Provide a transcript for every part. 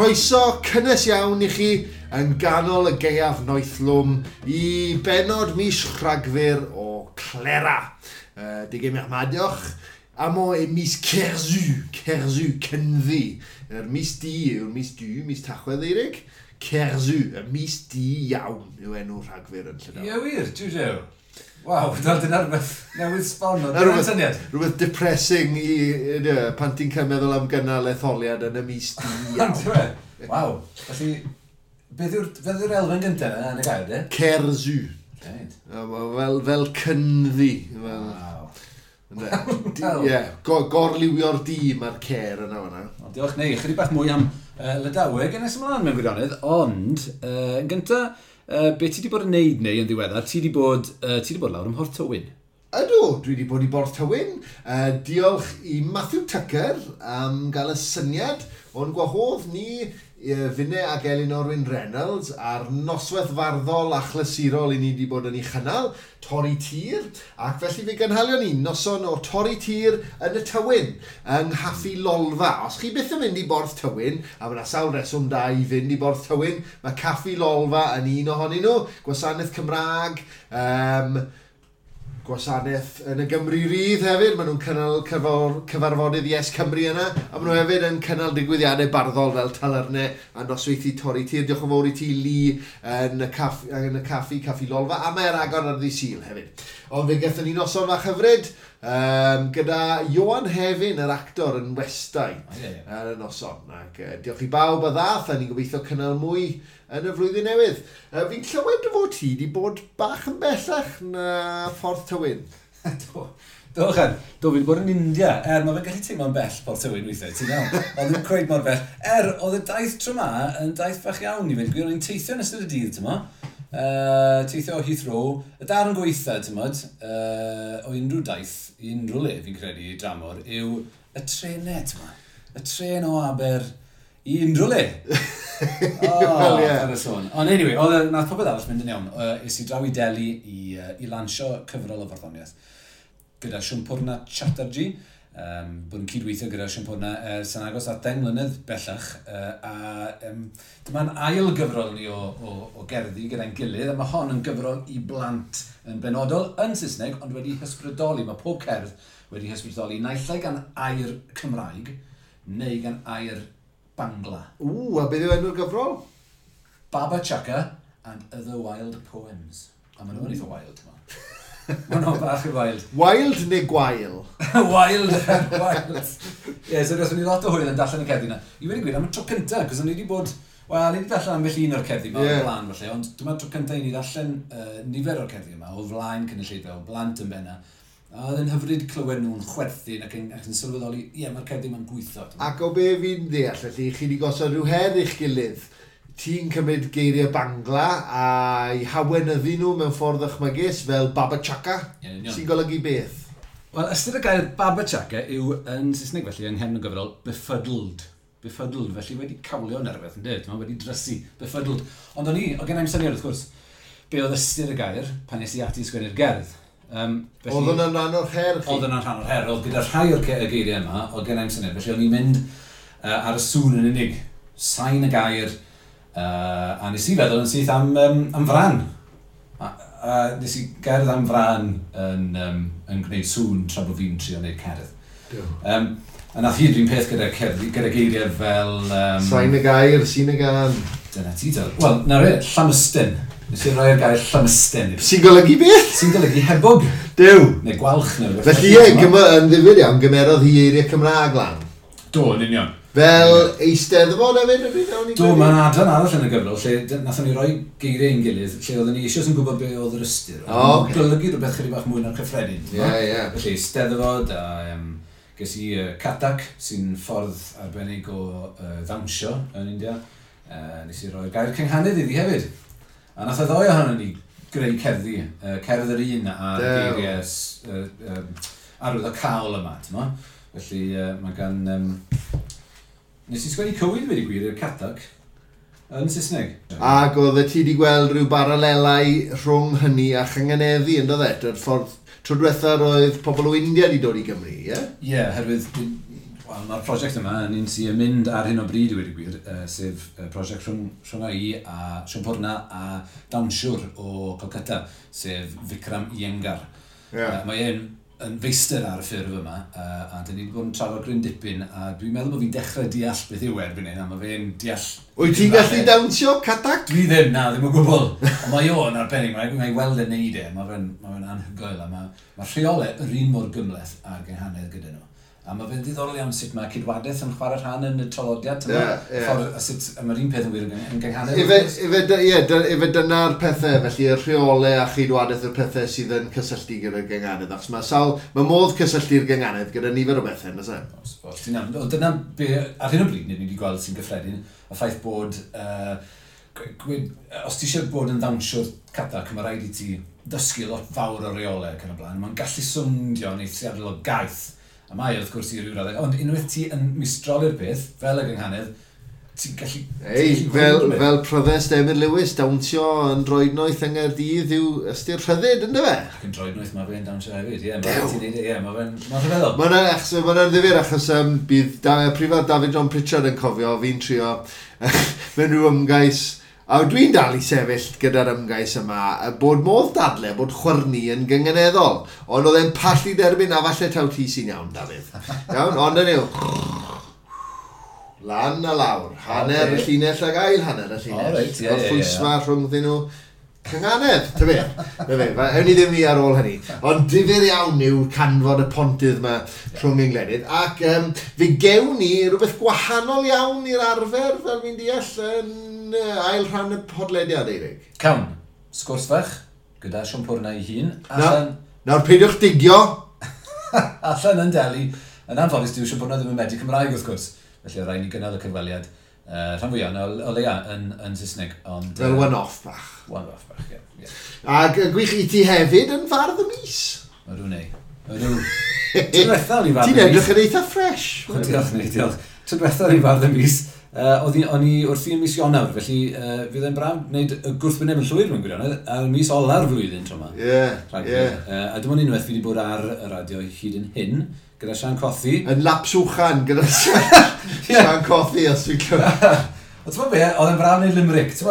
Croeso cynnes iawn i chi yn ganol y gaeaf noethlwm i bennod mis Rhagfyr o Clera. Degemer mat deoc'h, amañ e mis Kerzu, Kerzu, Cynddu. Yr mis du yw'r mis du, mis Tachwedd Eirig. Kerzu, y mis du iawn yw enw Rhagfyr yn Llydaw. Ie wir, jiw jiw. Waw, dyna rhywbeth newydd sbon o dyna'r syniad. Rhywbeth depressing i, pan ti'n cael meddwl am gynnal etholiad yn y mis du iawn. Waw, felly, beth yw'r elfen gyntaf yna yn y gair, de? Kerzu. Right. Fel cynddu. Fel, Waw. Ie, gorliwio'r du mae'r cer yna fan'na. O, diolch, neu, chydig bach mwy am Lydaweg yn nes ymlaen mewn gwirionedd, ond yn gyntaf, be ti wedi bod yn neud neu yn ddiweddar, ti wedi bod, ti wedi bod lawr ym Mhorth Tywyn. Ydw, dwi wedi bod i Borth Tywyn. Diolch i Matthew Tucker am gael y syniad o'n gwahodd ni finne ac Elinor Wyn Reynolds ar noswaith farddol a chlasurol i ni wedi bod yn ei chynnal, Torri Tir, ac felly fe gynhalion ni noson o Torri Tir yn y Tywyn, yng Nghaffi Lolfa. Os chi byth yn mynd i Borth Tywyn, a mae yna sawl reswm da i fynd i Borth Tywyn, mae Caffi Lolfa yn un ohonyn nhw, gwasanaeth Cymraeg, gwasanaeth yn y Gymru Rydd hefyd, maen nhw'n cynnal cyfarfodydd Yes Cymru yna, a maen nhw hefyd yn cynnal digwyddiadau barddol fel talyrnau a nosweithi Torri Tir. Diolch yn fawr i ti, Lee, yn y caffi, Caffi Lolfa, a mae'r agor ar ddydd Sul hefyd. Ond fe gaethon ni noson fach hyfryd gyda Ioan Hefin, yr actor, yn westai ar y noson. Ac diolch i bawb a ddath, a ni'n gobeithio cynnal mwy yn y flwyddyn newydd. Fi'n clywed dy fod ti wedi bod bach yn bellach na Phorth Tywyn. Do, do, do, fi wedi bod yn India. Mae fe'n gallu teimlo'n bell Porth Tywyn weithiau, ti'n iawn. Ond ddim cweit mor bell. Oedd y daith tro ma yn daith fach iawn i fynd. Gwir, o'n i'n teithio yn ystod y dydd, ti'n mo. Teithio o Heathrow. Y darn gweitha, ti'n modd, o unrhyw daith, i unrhyw le fi'n credu dramor, yw y trenau, ti'n mo. Y tren o Aber i unrhyw le. Wel, ie. Ar y sôn. Ond anyway, oedd nath popeth arall mynd yn iawn. Es i draw i Delhi i lansio cyfrol o farddoniaeth gyda Sampurna Chattarji. Bod yn cydweithio gyda Sampurna ers yn agos at 10 mlynedd bellach. A dyma'n ail gyfrol ni o gerddi gyda'n gilydd, a mae hon yn gyfrol i blant yn benodol yn Saesneg, ond wedi hysbrydoli. Mae pob cerdd wedi hysbrydoli naill ai gan air Cymraeg neu gan air Bangla. Ww, a beth yw enw'r gyfrol? Baba Chaka and Other Wild Poems. A maen nhw'n eitha wild, ma. Maen nhw'n bach yn wild. Wild neu gwael? Wild, wild. Ie, yeah, so gathon ni lot o hwyl yn darllen y cerddi yna. I wedi gwir, am y tro cyntaf, cos o'n i wedi bod... Wel, ni wedi darllen ambell un o'r cerddi yma o'r blaen, falle, ond dyma'r tro cyntaf i ni ddarllen nifer o'r cerddi yma, o flaen cynulleidfa, o blant yn benna. A oedd yn hyfryd clywed nhw'n chwerthin ac yn sylweddoli, ie, mae'r cerddi yma'n gweithio. Ac o be fi'n deall, felly, chi wedi gosod rhyw her i'ch gilydd. Ti'n cymryd geiriau Bangla a'i hawenyddu nhw mewn ffordd ychmygus fel Baba Chaka, Ie, yn union. sy'n golygu beth? Wel, ystyr y gair Baba Chaka yw yn Saesneg felly, yng nghefn y gyfrol, befuddled. Befuddled, felly wedi cawlio neu rhywbeth, yn dweud, mae wedi drysu, befuddled. Ond o'n i, oedd gen i'm syniad wrth gwrs, be oedd ystyr y gair pan nes i ati sgwennu'r gerdd. Felly, Oedd hwnna'n rhan o'r her chi? Oedd hwnna'n rhan o'r her, oedd gyda rhai o'r y geiriau yma, oedd gen i'm syniad, felly o'n i'n mynd ar y sŵn yn unig, sain y gair, a nes i feddwl yn syth am fran. A nes i gerdd am fran yn gwneud sŵn tra bod fi'n trio gwneud cerdd. A nath hi'r un peth gyda cerdd, gyda geiriau fel... Sain y gair, sy'n y gan. Dyna ti, del. Wel, na re, llamystyn. Nes i roi'r gair llamystyn. Sy'n golygu beth? Sy'n golygu hebog. Duw. Neu gwalch neu rhywbeth. Felly ie, yn ddifyr iawn, gymerodd hi eiriau Cymraeg lan. Do, yn union. Fel Eisteddfod hefyd, ydy nawn ni Do, credu? mae'n adran arall yn y gyfrol, lle nathon ni roi geiriau ein gilydd, lle oedden ni eisoes yn gwybod be oedd yr ystyr. O, ocê. Golygu rhywbeth chydig bach mwy na'r cyffredin. Ie, ie. Felly, Steddfod a ges i Kathak, sy'n ffordd arbennig o ddawnsio yn India. Nes i roi'r gair cynghanedd iddi hefyd. A nath y ddoi ohonon ni greu cerddi, cerdd yr un a'r Dew. geiriau arwyddocaol yma, ti'n mo? Felly, mae gan... Nes i sgwennu cywydd wedi gwir i'r Kathak yn Saesneg. Ac oedd ti wedi gweld rhyw baralelau rhwng hynny a chynganeddu, yn dod e? Yr ffordd tro diwetha roedd pobl o India wedi dod i Gymru, ie? Ie, yeah, herwydd Wel, mae'r prosiect yma yn un sy'n mynd ar hyn o bryd i wedi gwir, sef prosiect rhwng i a Siompwrna a dawnsiwr o Calcutta, sef Vikram Iyengar. Yeah. Mae e'n yn feistr ar y ffurf yma, a dyn ni wedi bod yn trafod gryn dipyn, a dwi'n meddwl bod fi'n dechrau deall beth yw erbyn hyn, a mae fe'n deall. Wyt ti'n gallu dawnsio Kathak? Dwi ddim, na, ddim o gwbl. Ond mae o'n arbennig, mae'n weld e'n neud e, mae fe'n ma fe anhygoel, a mae rheolau yr un mor gymhleth â'r gynghanedd gyda nhw. A mae fe'n ddiddorol iawn sut mae cydwadaeth yn chwarae rhan yn y traddodiad. Yeah, yeah. Ffordd, a sut, a mae'r un peth yn wir yn gynghanedd. Ife dyna'r pethau, felly y rheolau a chydwadaeth yw'r pethau sydd yn cysylltu gyda'r gynghanedd. Achos mae sawl, mae modd cysylltu'r gynghanedd gyda nifer o bethau, nag oes e? Os, os, dyna be, ar hyn o bryd, ni wedi gweld sy'n gyffredin, y ffaith bod, os ti eisiau bod yn ddawnsiwr Kathak, mae rhaid i ti dysgu lot fawr o reolau ac yn y blaen. Mae'n gallu swnio'n eithriadol o gaeth. A mae wrth gwrs i ryw raddau. Ond unwaith ti yn mistroli'r peth, fel y gynghanedd, ti'n gallu. Ei, fel pryddest Emyr Lewis, dawnsio yn droednoeth yng Nghaerdydd yw ystyr rhyddid, ynddo fe? Ac yn droednoeth mae fe'n dawnsio hefyd, ie. Mae'n ti'n neud e, ie, mae fe'n rhyfeddol. Mae'n ddifyr achos bydd Prifardd David John Pritchard yn cofio, fi'n trio mewn rhyw ymgais. A dwi'n dal i sefyll gyda'r ymgais yma, bod modd dadle bod chwyrnu yn gynganeddol. Ond oedd e'n pallu derbyn, a falle taw ti sy'n iawn, Dafydd. Iawn, ond yn yw. Lan a lawr. Hanner y llinell ag ail hanner y llinell. Oh, right, yeah, Gorffwysfa rhwngddyn nhw. Cynganedd, ta be. Na fe, ewn ni ddim i ar ôl hynny. Ond difyr iawn yw canfod y pontydd yma rhwng ein gwledydd. Ac fe gewn ni rhywbeth gwahanol iawn i'r arfer, fel fi'n deall, yn ail rhan y podlediad, Eirig. Cawn, sgwrs fach, gyda Siompwrna ei hun. Allan. Nawr, peidiwch digio. Allan yn Delhi. Yn anffodus, dyw Siompwrna ddim yn medru Cymraeg, wrth gwrs. Felly, rhaid ni gynnal y cyfweliad. Rhan fwyaf, o leia, yn Saesneg. Ond, fel one-off bach. One-off bach, ie. Yeah. Ac gwych i ti hefyd yn fardd y mis. Ydw, nei. Ydw. Ti'n diwetha o'n i fardd y mis. Ti'n edrych yn eitha fresh. Diolch, nei, diolch. Ti'n diwetha o'n i fardd y mis. O'n i wrthi yn mis Ionawr, felly fydd e'n braf wneud y gwrthwyneb yn llwyr mewn gwirionedd, ar mis ola'r flwyddyn tro yma. Ie, ie. A dim ond unwaith fi wedi bod ar y radio hyd yn hyn, gyda Sian Cothi. Yn lapswchan gyda Sian Cothi, os dwi'n clywed. Ond ti'n be, oedd e'n braf wneud limerick. Ti'n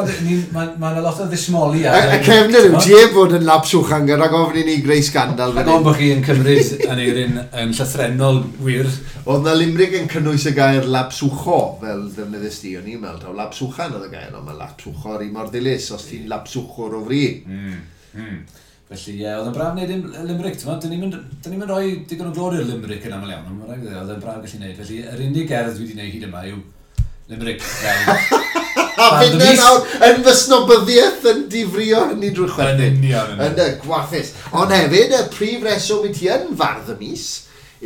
mae yna lot o ddismoli ar. Y cefnir yw, ti heb fod yn lapswchan gyda gofyn i ni greu scandal. Rhag ofn bod chi yn cymryd Aneirin yn llythrennol wir. Oedd na limerick yn cynnwys y gair lapswcho, fel ddefnyddus di, o'n i'n meddwl, taw lapswchan oedd y gair, ond mae lapswcho yr un mor ddilys, os ti'n lapswchwr o fri. Felly, ie, oedd e'n braf wneud limerick, ti'n meddwl, dyn ni'n rhoi digon o glod i'r limerick yn aml iawn, ond mae'n rhaid, oedd e'n braf gallu gwneud. Felly, yr unig gerdd dwi wedi gwneud hyd yma yw limerick. A finne nawr yn fy snobyddiaeth yn difrio hynny drwy chwerthin. Yn union. Yn y gwarthus. Ond hefyd, y prif reswm i ti yn fardd y mis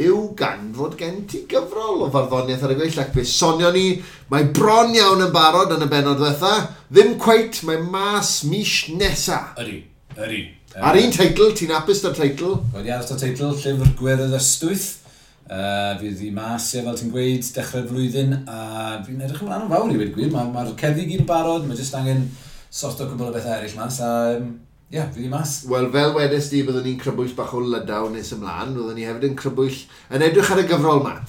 yw gan fod gen ti gyfrol o farddoniaeth ar y gweill, ac fe sonio ni, mae bron iawn yn barod yn y bennod ddiwetha, ddim cweit, mae mas mis nesa. Ydy, ydy. Ar un teitl, ti'n hapus da'r teitl? Wedi aros da'r teitl, Llyfr Gwerdd Ystwyth. Fydd hi mas, ie, fel ti'n gweud, dechrau'r flwyddyn, a fi'n edrych ymlaen yn fawr i wedi gwir. Mae'r cerddi gyd yn barod, mae jyst angen sorto cwbl o bethau eraill mas, a ie, fydd hi mas. Wel, fel wedes di, byddwn ni'n crybwyll bach o Lydaw nes ymlaen, byddwn ni hefyd yn crybwyll yn edrych ar y gyfrol yma,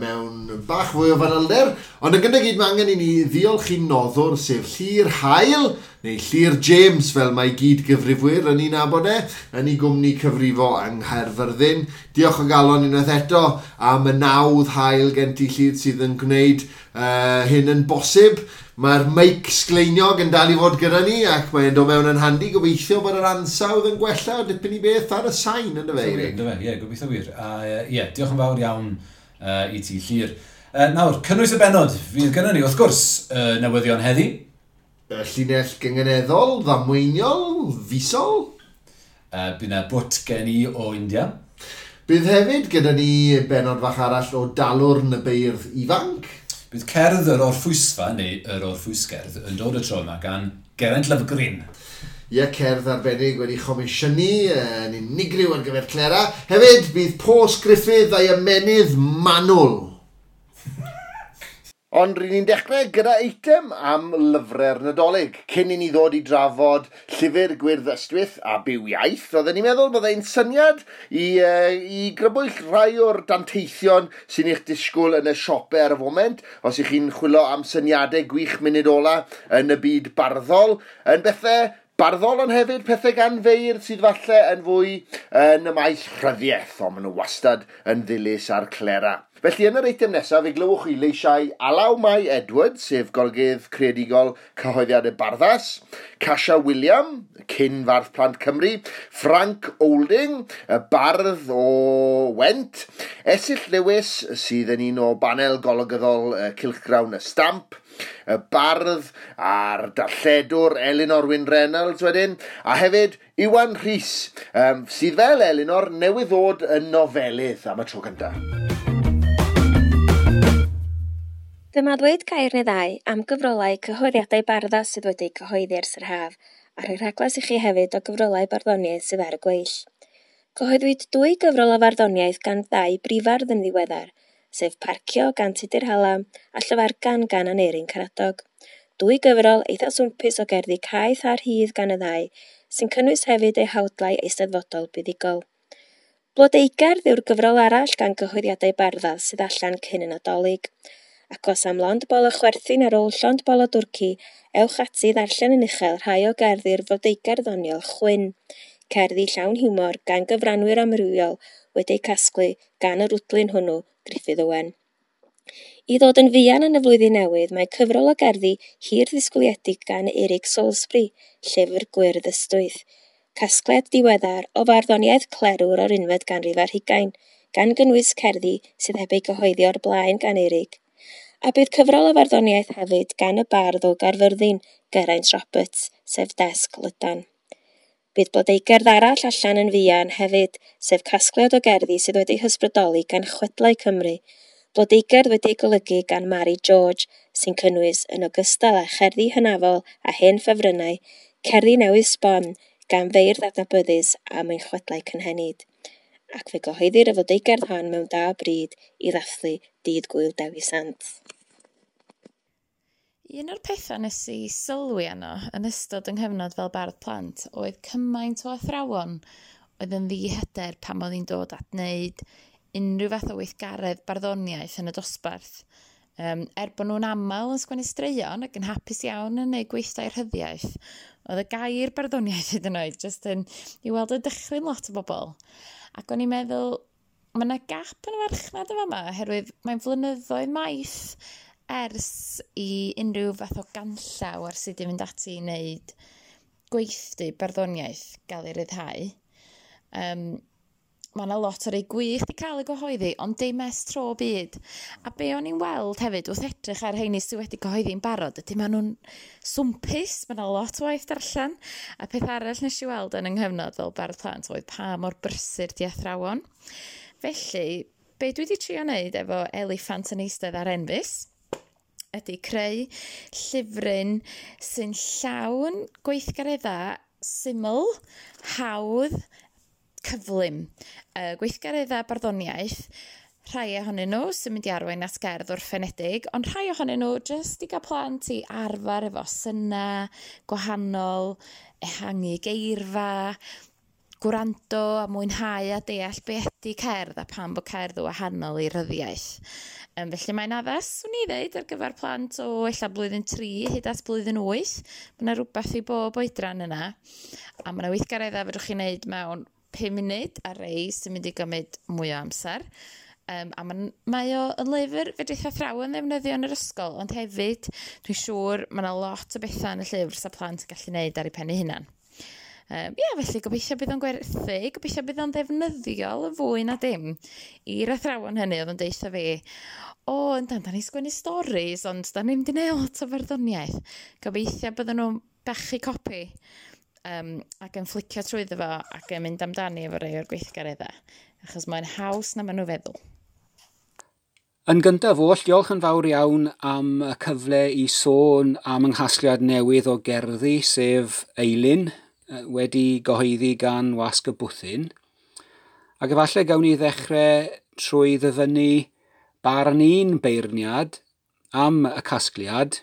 mewn bach fwy o fanylder, ond yn gyntaf gyd mae angen i ni ddiolch i'n noddwr, sef Llyr Hael, neu Llyr James, fel mae gyd gyfrifwyr yn ei nabod e, yn ei gwmni cyfrifo yng Nghaerfyrddin. Diolch o galon unwaith eto am y nawdd hael gen ti, Llyr, sydd yn gwneud hyn yn bosib. Mae'r meic sgleiniog yn dal i fod gyda ni ac mae'n dod mewn yn handi. Gobeithio bod yr ansawdd yn gwella o dipyn i beth ar y sain, ynddo fe, Eirig? Ynddo fe, ie, gobeithio wir. Ie, diolch yn fawr iawn i ti, Llyr. Nawr, cynnwys y bennod fydd gyda ni, wrth gwrs, newyddion heddi. Llinell gynganeddol, ddamweiniol, fisol. Bydd yna bwt gen i o India. Bydd hefyd gyda ni bennod fach arall o Dalwrn y Beirdd Ifanc. Bydd cerdd yr Orffwysfa, neu yr Orffwysgerdd, yn dod y tro yma gan Geraint Lovgreen. Ie, cerdd arbennig wedi chomisiynu yn unigryw ar gyfer Clera. Hefyd, bydd Pos Griffith a'i ymennydd manwl. Ond ry'n ni'n dechrau gyda eitem am lyfrau'r Nadolig. Cyn i ni ddod i drafod llyfr Gwyrdd Ystwyth a Byw Iaith, oedden ni'n meddwl byddai'n syniad i grybwyll rhai o'r danteithion sy'n eich disgwyl yn y siopau ar y foment, os ych chi'n chwilio am syniadau gwych munud ola yn y byd barddol, yn bethau barddol ond hefyd pethau gan feirdd sydd falle yn fwy yn y maes rhyddiaeth, ond maen nhw wastad yn ddilys a'r clera. Felly yn yr eitem nesaf, fe glywch chi leisiau Alaw Mai Edwards, sef golygydd creadigol cyhoeddiadau Barddas, Casia William, cyn fardd Plant Cymru, Frank Olding, y bardd o Went, Esyllt Lewis, sydd yn un o banel golygyddol Cylchgrawn y Stamp, y bardd a'r darlledwr Elinor Wyn Reynolds wedyn, a hefyd Iwan Rhys, sydd fel Elinor newydd ddod yn nofelydd am y tro cyntaf. Dyma ddweud gair neu ddau am gyfrolau cyhoeddiadau Barddas sydd wedi'u cyhoeddi ers yr haf, a rhoi rhaglas i chi hefyd o gyfrolau barddoniaeth sydd ar y gweill. Cyhoeddwyd dwy gyfrol o farddoniaeth gan ddau brifardd yn ddiweddar, sef Parcio gan Tudur Hallam a Llyfargan gan Aneirin Karadog. Dwy gyfrol eitha swmpus o gerddi caeth a rhydd gan y ddau, sy'n cynnwys hefyd eu hawdlau eisteddfodol buddugol. Blodeugerdd yw'r gyfrol arall gan gyhoeddiadau Barddas sydd allan cyn y Nadolig. Ac os am lond bol o chwerthin ar ôl llond bol o dwrci, ewch ati i ddarllen yn uchel rhai o gerddi'r flodeugerdd ddoniol Chwyn, cerddi llawn hiwmor gan gyfranwyr amrywiol wedi'u casglu gan yr wdlyn hwnnw, Gruffydd Owen. I ddod yn fuan yn y flwyddyn newydd, mae cyfrol o gerddi hir ddisgwyliedig gan Eric Salisbury, Llyfr Gwyrdd Ystwyth, casgliad diweddar o farddoniaeth clerwr o'r unfed ganrif ar hugain, gan gynnwys cerddi sydd heb eu gyhoeddi o'r blaen gan Eric. A bydd cyfrol o farddoniaeth hefyd gan y bardd o Gaerfyrddin, Geraint Roberts, sef Desg Lydan. Bydd blodeugerdd arall allan yn fuan hefyd, sef casgliad o gerddi sydd wedi'i hysbrydoli gan Chwedlau Cymru, blodeugerdd wedi'i golygu gan Mary George, sy'n cynnwys yn ogystal â cherddi hynafol a hen ffefrynnau, cerddi newydd sbon gan feirdd adnabyddus am ein chwedlau cynhenid. Ac fe gyhoeddir y flodeugerdd hon mewn da bryd i ddathlu Dydd Gŵyl Dewi Sant. Un o'r pethau nes i sylwi arno yn ystod yng nghyfnod fel bardd plant oedd cymaint o athrawon oedd yn ddihyder pan oedd hi'n dod at wneud unrhyw fath o weithgaredd barddoniaeth yn y dosbarth. Er bod nhw'n aml yn sgwennu straeon ac yn hapus iawn yn gwneud gweithdai rhyddiaeth, oedd y gair barddoniaeth hyd yn oed jyst yn i weld y dychryn lot o bobl. Ac o'n i'n meddwl, mae yna gap yn y farchnad yma yma, oherwydd mae'n flynyddoedd maith ers i unrhyw fath o ganllaw ar sut i fynd ati i wneud gweithdy barddoniaeth gael ei ryddhau. Mae yna lot o rei gwych wedi cael ei gyhoeddi, ond dim ers tro byd. A be o'n i'n weld hefyd wrth edrych ar rheini sydd wedi cyhoeddi'n barod, ydy maen nhw'n swmpus, mae yna lot o waith darllen. A peth arall nes i weld yn yng nghyfnod fel bardd plant oedd pa mor brysur di athrawon. Felly, be dwi wedi trio wneud efo Eliffant yn eistedd ar enfys, ydy creu llyfryn sy'n llawn gweithgareddau syml, hawdd, cyflym. Gweithgareddau barddoniaeth, rhai ohonyn nhw sy'n mynd i arwain at gerdd orffenedig, ond rhai ohonyn nhw jyst i gael plant i arfer efo synnau gwahanol, ehangu geirfa, gwrando a mwynhau a deall be ydy cerdd a pam bod cerdd yn wahanol i ryddiaeth. Felly mae'n addas, swn i ddeud, ar gyfer plant o ella blwyddyn 3 hyd at blwyddyn 8. Mae yna rhywbeth i bob oedran yna. A mae yna weithgareddau fedrwch chi wneud mewn 5 munud a rei sy'n mynd i gymryd mwy o amser. A mae o yn lyfr fedrith athrawon ddefnyddio yn yr ysgol, ond hefyd dwi'n siŵr mae yna lot o bethau yn y llyfr sa plant yn gallu gwneud ar eu pen eu hunan. Felly gobeithio bydd o'n gwerthu, gobeithio bydd o'n ddefnyddiol yn fwy na dim i'r athrawon hynny oedd yn deutha fi, o, yndan, da ni'n sgwennu storis, ond da ni'n mynd i wneud lot o farddoniaeth. Gobeithio bydden nhw'n bachu copi ac yn flicio trwyddo fo ac yn mynd amdani efo rhai o'r gweithgareddau, achos mae'n haws na maen nhw feddwl. Yn gyntaf oll, diolch yn fawr iawn am y cyfle i sôn am yng nghasgliad newydd o gerddi, sef Eilun, wedi gyhoeddi gan Wasg y Bwthyn. Ac efallai gawn ni ddechrau trwy ddyfynnu barn un beirniad am y casgliad,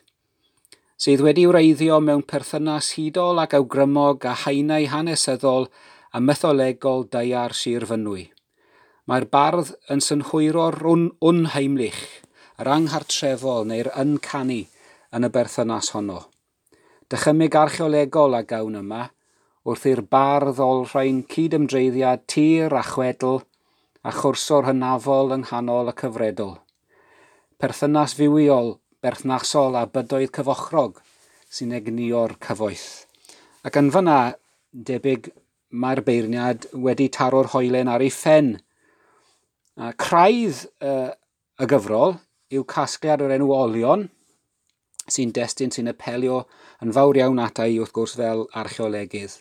sydd wedi wreiddio mewn perthynas hudol ac awgrymog a haenau hanesyddol a mytholegol daear Sir Fynwy. Mae'r bardd yn synhwyro'r unheimlich, yr anghartrefol neu'r uncanny yn y berthynas honno. Dychymyg archeolegol a gawn yma, wrth i'r bardd olrhain cydymdreiddiad tir a chwedl a chwrso'r hynafol yng nghanol y cyfredol. Perthynas fywiol, berthnasol a bydoedd cyfochrog sy'n egnïo'r cyfoeth. Ac yn fyna, debyg mae'r beirniad wedi taro'r hoelen ar ei phen. A craidd y gyfrol yw casgliad o'r enw Olion, sy'n destun sy'n apelio yn fawr iawn ata i wrth gwrs fel archeolegydd.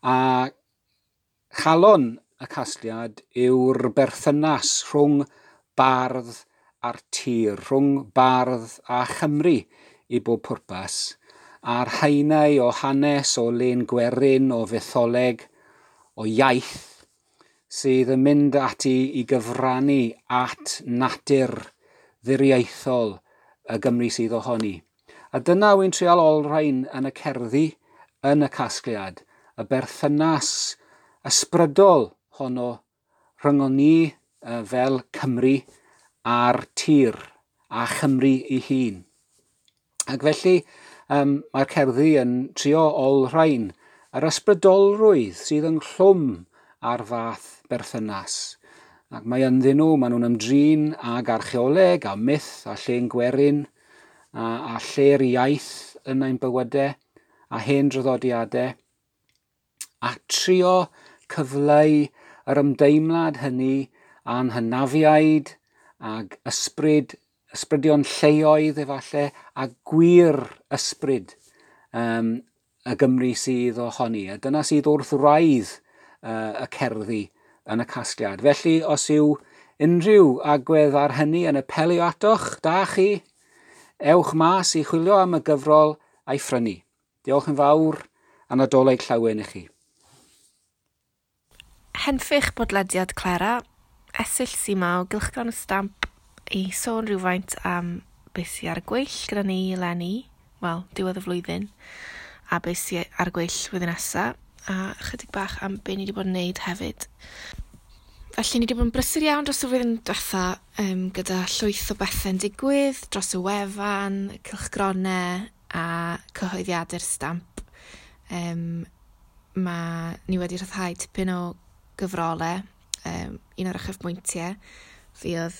A chalon y casgliad yw'r berthynas rhwng bardd a'r tir, rhwng bardd a Chymru i bob pwrpas, a'r haenau o hanes, o len gwerin, o fytholeg, o iaith, sydd yn mynd ati i gyfrannu at natur ddiriaethol y Gymru sydd ohoni. A dyna wy'n trial olrhain yn y cerddi, yn y casgliad, y berthynas ysbrydol honno rhyngon ni fel Cymru a'r tir a Chymru ei hun. Ac felly mae'r cerddi yn trio olrhain yr ysbrydolrwydd sydd ynghlwm ar fath berthynas. Ac mae ynddyn nhw, maen nhw'n ymdrin ag archeoleg a myth a llên gwerin a lle'r iaith yn ein bywydau a hen draddodiadau, a trio cyfleu yr ymdeimlad hynny a'n hynafiaid ag ysbryd, ysbrydion lleoedd efallai, a gwir ysbryd y Gymru sydd ohoni. A dyna sydd wrth wraidd y cerddi yn y casgliad. Felly, os yw unrhyw agwedd ar hynny yn apelio atoch, da chi, ewch mas i chwilio am y gyfrol a'i phrynu. Diolch yn fawr a Nadolig llawen i chi. Henffych bodlediad Clera, Esyll Sima o Gylchgrawn y Stamp i sôn rhywfaint am beth sydd ar y gweill gyda ni eleni, wel, diwedd y flwyddyn, a beth sydd ar y gweill flwyddyn nesaf, a chydig bach am be ni wedi bod yn neud hefyd. Felly ni wedi bod yn brysur iawn dros y flwyddyn diwetha gyda llwyth o bethau'n digwydd dros y wefan, cylchgronau a cyhoeddiadau'r Stamp. Mae ni wedi rhyddhau tipyn o gyfrolau. Un o'r uchafbwyntiau fuodd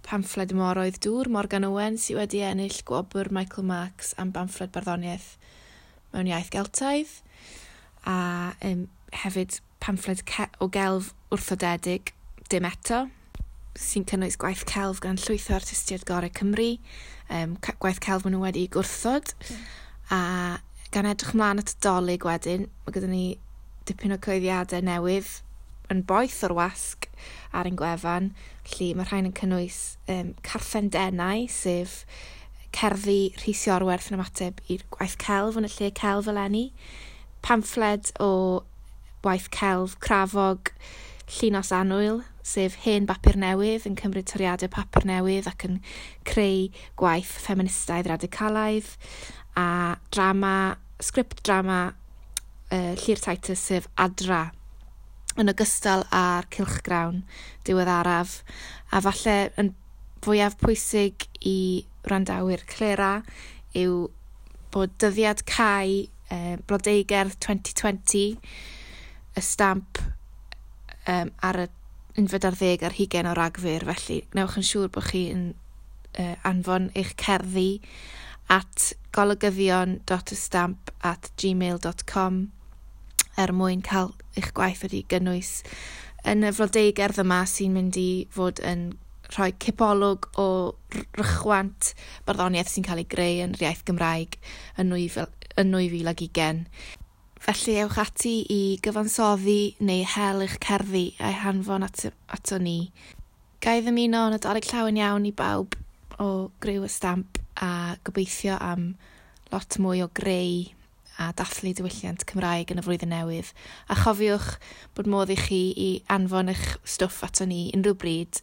pamffled Moroedd Dŵr Morgan Owen sydd wedi ennill gwobr Michael Marks am bamffled barddoniaeth mewn iaith Geltaidd, a hefyd pamffled o gelf wrthodedig Dim Eto, sy'n cynnwys gwaith celf gan llwyth o artistiaid gorau Cymru, gwaith celf maen nhw wedi gwrthod, a gan edrych mlaen at y Dolig wedyn, mae gyda ni dipyn o cyhoeddiadau newydd yn boeth o'r wasg ar ein gwefan, felly mae rhain yn cynnwys Carthen Denau, sef cerddi Rhys Iorwerth yn ymateb i'r gwaith celf yn y lle celf eleni, pamffled o waith celf crafog Llinos Annwyl, sef hen bapur newydd yn cymryd toriadau papur newydd ac yn creu gwaith ffeministaidd radicalaidd, a drama, sgript drama Llyr Titus, sef Adra, yn ogystal â'r cylchgrawn diweddaraf, a falle yn fwyaf pwysig i wrandawyr Clera yw bod dyddiad cau Blodeugerdd 2020, y Stamp ar y 21 o Ragfyr, felly gwnewch yn siŵr bod chi'n anfon eich cerddi at golygyddion.ystamp@gmail.com er mwyn cael eich gwaith wedi gynnwys yn y flodeugerdd yma sy'n mynd i fod yn rhoi cipolwg o rychwant barddoniaeth sy'n cael ei greu yn yr iaith Gymraeg yn 2020. Felly ewch ati i gyfansoddi neu hel eich cerddi a'i hanfon ato ni. Ga i ddymuno Nadolig llawen iawn i bawb o griw y Stamp a gobeithio am lot mwy o greu a dathlu diwylliant Cymraeg yn y flwyddyn newydd. A chofiwch bod modd i chi i anfon eich stwff ato ni unrhyw bryd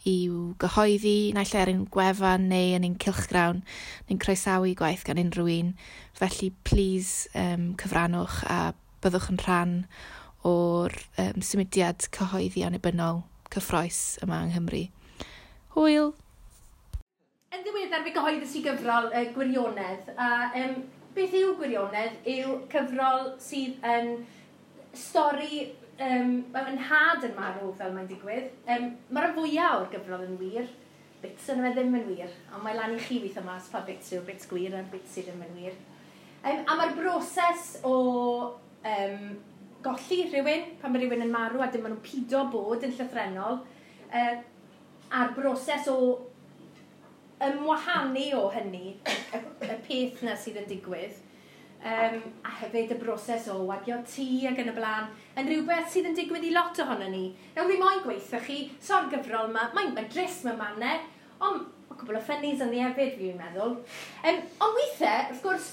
i'w gyhoeddi, naill ai ar ein gwefan neu yn ein cylchgrawn. Ni'n croesawu gwaith gan unrhyw un. Felly, please cyfrannwch a byddwch yn rhan o'r symudiad cyhoeddi annibynnol cyffrous yma yng Nghymru. Hwyl! Yn ddiweddar fe gyhoeddus i gyfrol Gwirionedd, a beth yw Gwirionedd yw cyfrol sydd yn stori, yn nhad yn marw fel mae'n digwydd. Mae'r rhan fwyaf o'r gyfrol yn wir, bits yn fe ddim yn wir, ond mae lan i chi weithio mas pa bits yw'r bits gwir a'r bits sydd ddim yn wir. A mae'r broses o golli rhywun, pan mae rhywun yn marw a dim maen nhw'n pido bod yn llythrennol, a'r broses o ymwahanu o hynny, y peth na sydd yn digwydd, a hefyd y broses o wagio tŷ ac yn y blaen, yn rhywbeth sydd yn digwydd i lot ohono ni. Nawr fi moyn gweithio chi, so'r gyfrol yma, mae'n drist mewn mannau, ond mae cwbl o ffynnis ynddi hefyd, fi'n meddwl. Ond weithiau, wrth gwrs,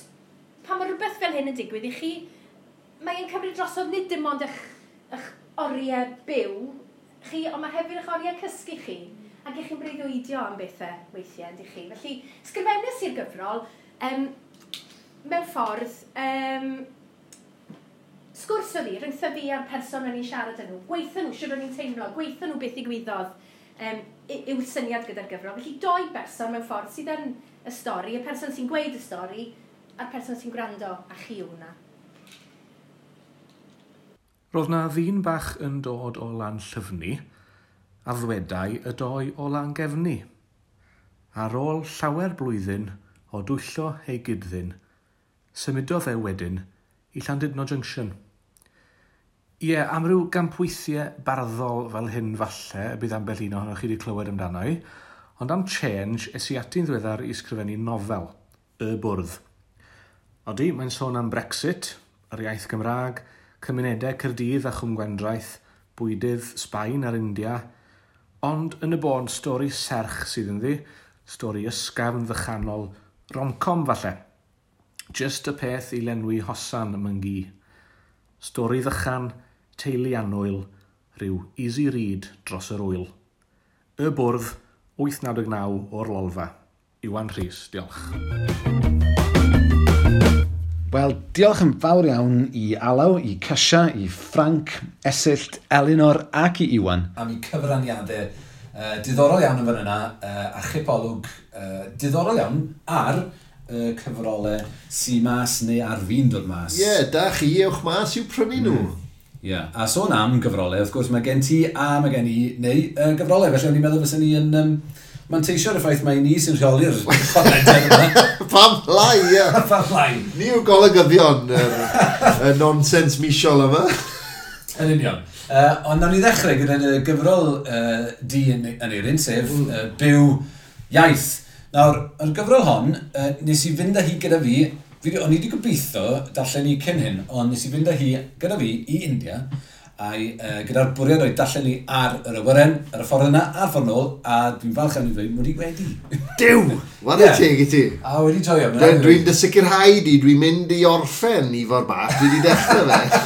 pan mae rhywbeth fel hyn yn digwydd i chi, mae'n cymryd drosodd nid dim ond eich oriau byw chi, ond mae hefyd eich oriau cysgu chi. Ac ych chi'n breuddwydio am bethau weithiau, yndych chi. Felly, sgrifennes i'r gyfrol, mewn ffordd, sgwrs oedd hi, rhyngtho fi a'r person o'n i'n siarad â nhw. Gweithio nhw, siwr o'n i'n teimlo, gweithio nhw beth ddigwyddodd yw'r syniad gyda'r gyfrol. Felly, doi berson mewn ffordd sydd yn y stori, y person sy'n gweud y stori, a'r person sy'n gwrando, a chi yw hwnna. Roedd na ddyn bach yn dod o Lanllyfni, a ddwedai y doi o Langefni. Ar ôl llawer blwyddyn o dwyllo ei gyd-ddyn, symudodd e wedyn i Llandudno Junction. Ie, am ryw gampweithiau barddol fel hyn falle y bydd ambell un ohonoch chi wedi clywed amdano i, ond am change es i ati'n ddiweddar i ysgrifennu nofel, Y Bwrdd. Odi, mae'n sôn am Brexit, yr iaith Gymraeg, cymunedau Caerdydd a Chwm Gwendraeth, bwydydd Sbaen a'r India, ond yn y bôn stori serch sydd ynddi, stori ysgafn ddychanol, rom-com falle. Just y peth i lenwi hosan ym ngi. Stori ddychan, teulu annwyl, rhyw easy read dros yr wyl. Y Bwrdd, 899 o'r Lolfa. Iwan Rhys, diolch. Wel, diolch yn fawr iawn i Alaw, i Casia, i Frank, Esyllt, Elinor ac i Iwan. Am eu cyfraniadau diddorol iawn yn fan yna, a chipolwg diddorol iawn ar cyfrolau sy mas neu ar fin dod mas. Ie, yeah, da chi, ewch mas i'w prynu nhw. Ie, yeah. A sôn am gyfrolau, wrth gwrs mae gen ti a mae gen i neu gyfrolau, felly o'n i'n meddwl fysen ni yn manteisio ar y ffaith mai ni sy'n rheoli'r podlediad yma. Pam lai, ie. Pam lai. Ni yw golygyddion y nonsens misol yma. Yn union. Ond nawn ni ddechrau gyda'r gyfrol di yn Eirin, sef Byw Iaith. Nawr, yr gyfrol hon, nes i fynd â hi gyda fi, o'n i wedi gobeithio darllen hi cyn hyn, ond nes i fynd â hi gyda fi i India, a'i gyda'r bwriad o'i darllen hi ar yr awyren, ar y ffordd yna, a'r ffordd nôl, a dwi'n falch am i ddweud, mod i wedi. Duw! Whare teg i ti. A wedi joio. Dwi'n dy sicrhau di, dwi'n mynd i orffen Ifor Bach, dwi wedi dechrau fe.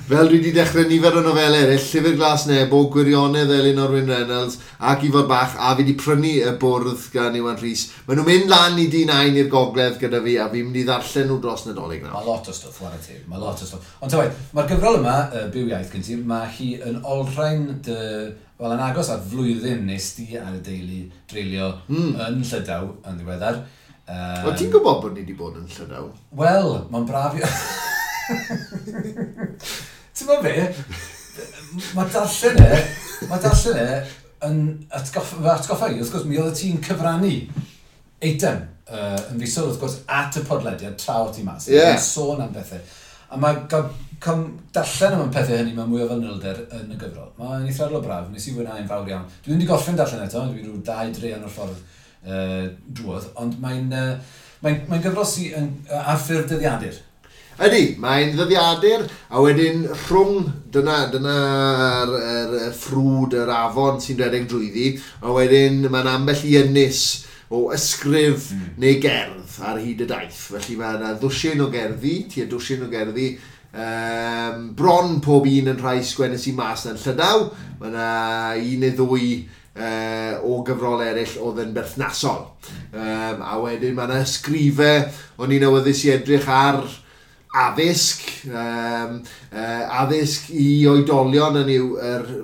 Fel dwi wedi dechrau nifer o nofelau eraill, Llyfr Glas Nebo, Gwirionedd Elinor Wyn Reynolds ac Ifor Bach, a fi wedi prynu Y Bwrdd gan Iwan Rhys. Maen nhw'n mynd lan i D9 i'r gogledd gyda fi, a fi'n mynd i ddarllen nhw dros Nadolig nawr. Mae lot o stwff, whare teg, mae lot o stwff. Ond ta waeth, mae'r gyfrol yma, Byw Iaith gen ti, mae hi yn olrhain dy, wel, yn agos at flwyddyn nes di ar y deulu dreulio yn Llydaw yn ddiweddar. O, ti'n gwybod bod ni wedi bod yn Llydaw? Wel, mae'n braf i... Ti'n gwybod be? Mae darllen e yn atgoffa i, wrth gwrs, mi oedd ti'n cyfrannu eitem yn fisol, wrth gwrs, at y podlediad tra o ti mas. Yn sôn am bethau. A mae darllen am y pethau hynny mewn mwy o fanylder yn y gyfrol. Mae'n eithriadol o braf, nes i fwynhau'n fawr iawn. Dwi ddim wedi gorffen darllen eto, dwi rhyw 2 draean o'r ffordd drwodd, ond mae'n gyfrol sy'n ar ffurf dyddiadur. Ydy, mae'n ddyddiadur, a wedyn rhwng, dyna'r yr ffrwd, yr afon sy'n rhedeg drwyddi, a wedyn mae'n ambell i ynys o ysgrif neu gerdd ar hyd y daith. Felly mae yna ddwsin o gerddi, tua dwsin o gerddi, bron pob un yn rhai sgwennes i mas yn Llydaw. Mae yna un neu ddwy o gyfrol eraill oedd yn berthnasol. A wedyn mae yna ysgrifau, o'n i'n awyddus i edrych ar addysg, addysg i oedolion yn yw,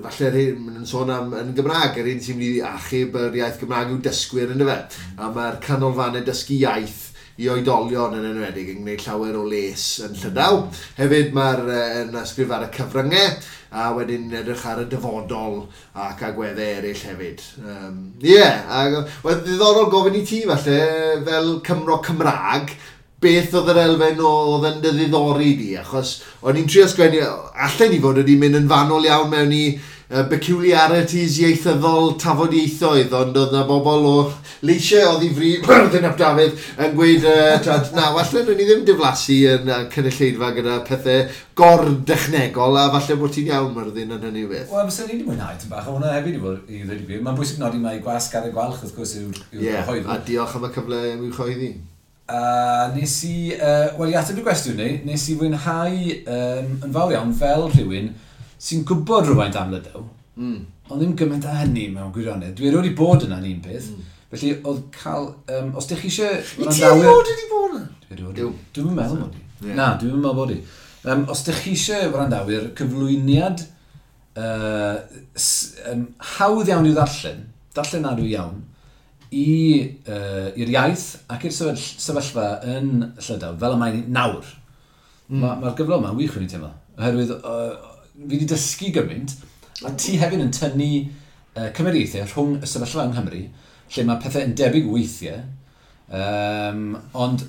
falle'r hyn, maen nhw'n sôn am yn Gymraeg, yr un sy'n mynd i achub yr iaith Gymraeg yw dysgwyr yn fe. A mae'r canolfannau dysgu iaith i oedolion yn enwedig yn gwneud llawer o les yn Llydaw. Hefyd mae'r yn ysgrif ar y cyfryngau a wedyn edrych ar y dyfodol ac agweddau eraill hefyd. Wel, ddiddorol gofyn i ti falle fel Cymro Cymraeg, beth oedd yr elfen oedd yn dy ddiddori di, achos o'n i'n trio sgwennu, allen i fod wedi mynd yn fanwl iawn mewn i peculiarities ieithyddol tafodieithoedd, ond oedd na bobl o leisiau oedd i fri, Myrddin ap Dafydd, yn gweud, na, falle nhw'n i ddim diflasu yn cynulleidfa gyda pethau gor-dechnegol, a falle bod ti'n iawn, Myrddin, yn hynny o beth. Wel, fysen ni wedi mwynhau tipyn bach, a hwnna hefyd i fod i ddweud i gwir. Mae'n bwysig nodi mai Gwasg Carreg Gwalch, wrth gwrs, yw'r cyhoeddwr. A diolch am y cyfle am i'w chyhoeddi. A nes i, wel, i ateb y gwestiwn ni, nes i fwynhau yn fawr iawn fel rhywun sy'n gwybod rhywfaint am Lydaw, ond ddim gymaint â hynny mewn gwirionedd. Dwi erioed wedi bod yna'n un peth, felly oedd cael, os ydych chi eisiau... I ti erioed wedi bod yna? Dwi erioed. Dwi'm yn meddwl mod i. Na, dwi'm yn meddwl bod i. Os ydych chi eisiau wrandawyr, cyflwyniad hawdd iawn i'w ddarllen, darllenadwy iawn, i'r iaith ac i'r sefyllfa yn Llydaw, fel y mae'n nawr. Mae'r gyfrol yma'n wych o'n i'n teimlo, oherwydd fi wedi dysgu gymaint, a ti hefyd yn tynnu cymariaethau rhwng y sefyllfa yng Nghymru, lle mae pethau yn debyg weithiau, ond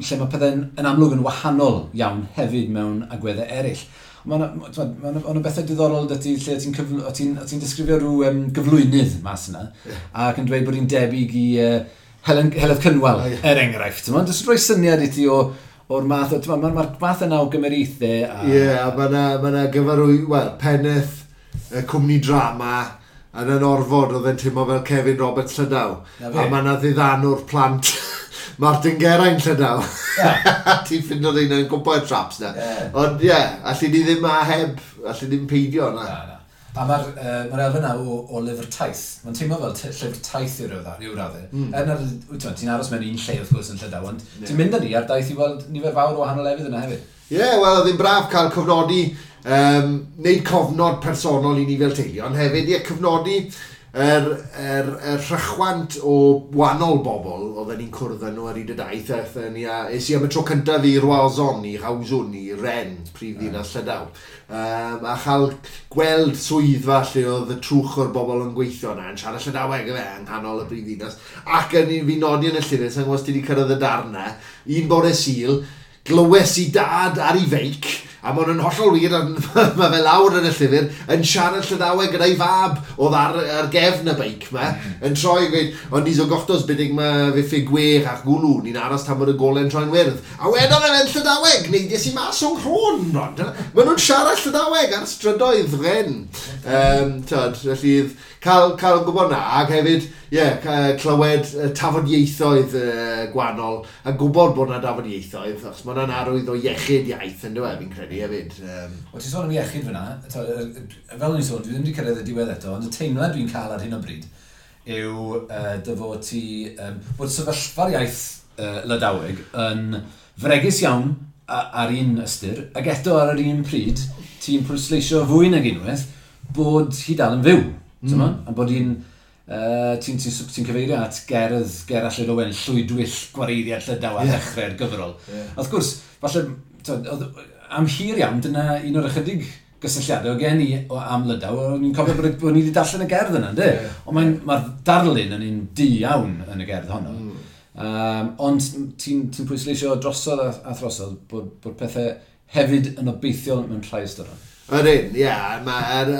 lle mae pethau yn amlwg yn wahanol iawn hefyd mewn agweddau eraill. Mae yna bethau diddorol 'da ti, lle ti'n disgrifio rhyw gyflwynydd mas yna, ac yn dweud bod hi'n debyg i Heledd Cynwal, er enghraifft. Mae'n jyst rhoi syniad i ti o'r math o, mae'r math yna o gymeriaethau. Ie, a mae yna gyfarwy, wel, pennaeth cwmni drama yn yn orfod oedd e'n teimlo fel Kevin Roberts Llydaw. A mae yna ddiddanwr plant Martin Geraint Llydaw. Ti'n ffindo rheina yn gwybod traps na. Ond ie, allu ni ddim a heb, allu ni ddim peidio na. Na. A mae'r elfen yna o lyfr taith. Mae'n teimlo fel llyfr taith i ryw raddau. Er nad ti'n aros mewn un lle wrth gwrs yn Llydaw, ond ti'n mynd â ni ar daith i weld nifer fawr o wahanol lefydd yna hefyd. Ie, wel, oedd hi'n braf cael cofnodi, neud cofnod personol i ni fel teulu, ond hefyd, ie, cofnodi yr rhychwant o wahanol bobl oedden ni'n cwrdd â nhw ar hyd y daith. Es i am y tro cyntaf i Roazhon, i Rawswn, i Rennes, prif ddinas Llydaw. A chael gweld swyddfa lle oedd y trwch o'r bobl yn gweithio yna, yn siarad Llydaweg efe, yng nghanol y brif ddinas. Ac yn fi nodi yn y llyfr, sa'n gwybod os ti wedi cyrraedd y darn 'na, un bore Sul, glywes i dad ar ei feic, a mae hwn yn hollol wir, mae fe lawr yn y llyfr, yn siarad Llydaweg gyda'i fab oedd ar gefn y beic ma, yn troi yn gweud, ond ni zo gortoz betek ma vefe gwer ar gouloù, ni'n aros tan bod y gole'n troi'n wyrdd. A wedodd e'n Llydaweg, neidies i mas o'n nghrôn, Rod. Maen nhw'n siarad Llydaweg ar strydoedd Rennes. Felly, cael gwybod na, ac hefyd, ie, clywed tafodieithoedd gwahanol, a gwybod bod na dafodieithoedd, achos mae hwnna'n arwydd o iechyd iaith yn dweud, fi'n credu hefyd. Wel, ti'n sôn am iechyd fyna, fel o'n i'n sôn, dwi ddim wedi cyrraedd y diwedd eto, ond y teimlad dwi'n cael ar hyn o bryd yw dy fod ti, bod sefyllfa'r iaith Lydaweg yn fregus iawn ar un ystyr, ac eto ar yr un pryd, ti'n pwysleisio fwy nag unwaith bod hi dal yn fyw. A bod hi'n, ti'n cyfeirio at gerdd Gerallt Llwyd Owen, Llwydwyll Gwareiddiad Llydaw ar ddechrau'r gyfrol. Wrth gwrs, falle, am hir iawn, dyna un o'r ychydig gysylltiadau o gen i am Lydaw, o'n i'n cofio bod ni wedi darllen y gerdd yna, ynddi? Ond mae'r darlun yn un du iawn yn y gerdd honno. Ond ti'n pwysleisio drosodd a throsodd bod pethau hefyd yn obeithiol mewn rhai ystyron. Ydyn, ie.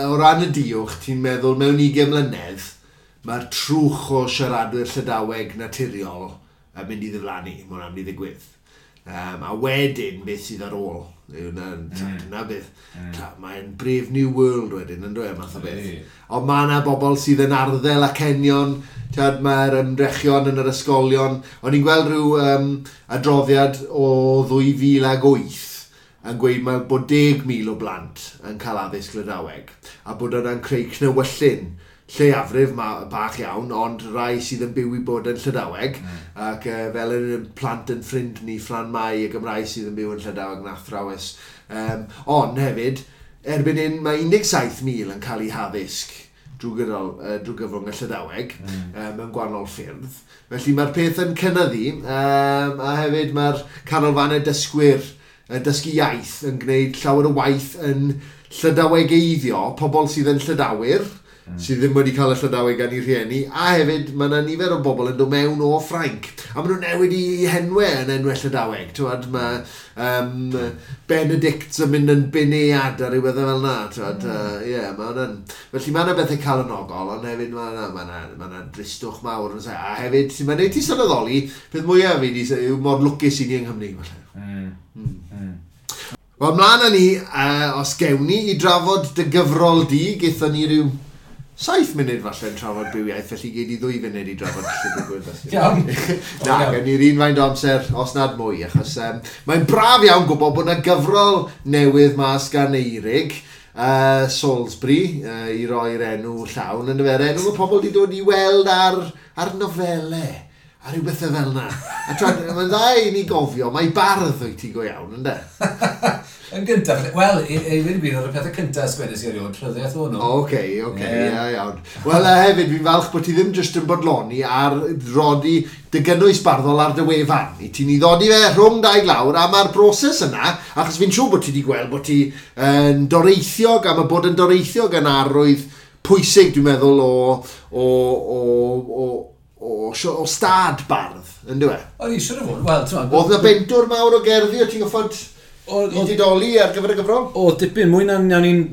O ran y diwch, ti'n meddwl mewn 20 mlynedd, mae'r trwch o siaradwyr Llydaweg naturiol yn mynd i ddiflannu, mae hwnna'n mynd i ddigwydd. A wedyn, beth sydd ar ôl? Dyna beth. Mae'n Brave New World wedyn, yn dweud, math o beth. Ond mae yna bobl sydd yn arddel acenion, mae'r ymdrechion yn yr ysgolion. O'n i'n gweld rhyw adroddiad o 2008 yn gweud mae bod 10,000 o blant yn cael addysg Lydaweg, a bod yna'n creu cnewyllyn Lleiafrif bach iawn, ond rai sydd yn byw i bod yn Llydaweg, ac fel yn plant yn ffrind ni, Fran Mai, y Gymraeg sydd yn byw yn Llydaweg yn athrawes. Ond hefyd, erbyn hyn mae 17,000 yn cael eu haddysg drwy gyfrwng y Llydaweg mewn gwahanol ffyrdd. Felly mae'r peth yn cynyddu, a hefyd mae'r canolfannau dysgwyr dysgu iaith yn gwneud llawer o waith yn Llydawegeiddio pobl sydd yn Llydawyr, sydd ddim wedi cael y Llydaweg gan eu rhieni, a hefyd mae yna nifer o bobl yn dod mewn o Ffrainc, a maen nhw'n newid i henwau yn enwau Llydaweg. T'wod, mae Benedict yn mynd yn Benead a rhywbeth fel yna. T'wod, yeah, ma hwnna'n. Felly mae yna bethau calonogol, ond hefyd mae yna dristwch mawr. Yn A hefyd, sy'n mae'n neud ti sylweddoli, peth mwyaf fi di yw mor lwcus i ni yng Nghymru, falle. Wel, mlaen â ni, os gewn ni, i drafod dy gyfrol di, gaethon ni ryw 7 munud falle yn trafod Byw Iaith, felly gei di 2 funud i drafod Llyfr Gwyrdd. Iawn. Na, gen ni'r un faint o amser, os nad mwy, achos mae'n braf iawn gwybod bod yna gyfrol newydd mas gan Eirig, Salisbury, i roi'r enw llawn, yn y enw mae pobl wedi dod i weld ar nofelau a rhyw bethau fel yna. A twad, mae'n dda i ni gofio, mae bardd wyt ti go iawn, ynddo? Yn gyntaf, wel, i ddweud y gwir, oedd y pethau cyntaf sgwennes i erioed, rhyddiaeth o'n nhw. Oce, ia, iawn. Wel, a hefyd, fi'n falch bod ti ddim jyst yn bodloni ar rodi dy gynnwys barddol ar dy wefan. I ti'n i ddodi fe rhwng dau glawr, a mae'r broses yna, achos fi'n siŵr bod ti wedi gweld bod ti yn doreithiog, a mae bod yn doreithiog yn arwydd pwysig, dwi'n meddwl, o stad bardd, yn dweud? O'n i siŵr o fod, wel, ti'n Oedd na bentwr mawr o gerddi o ti'n goffod i didoli ar gyfer y gyfrol? O, dipyn, mwy na nawn ni'n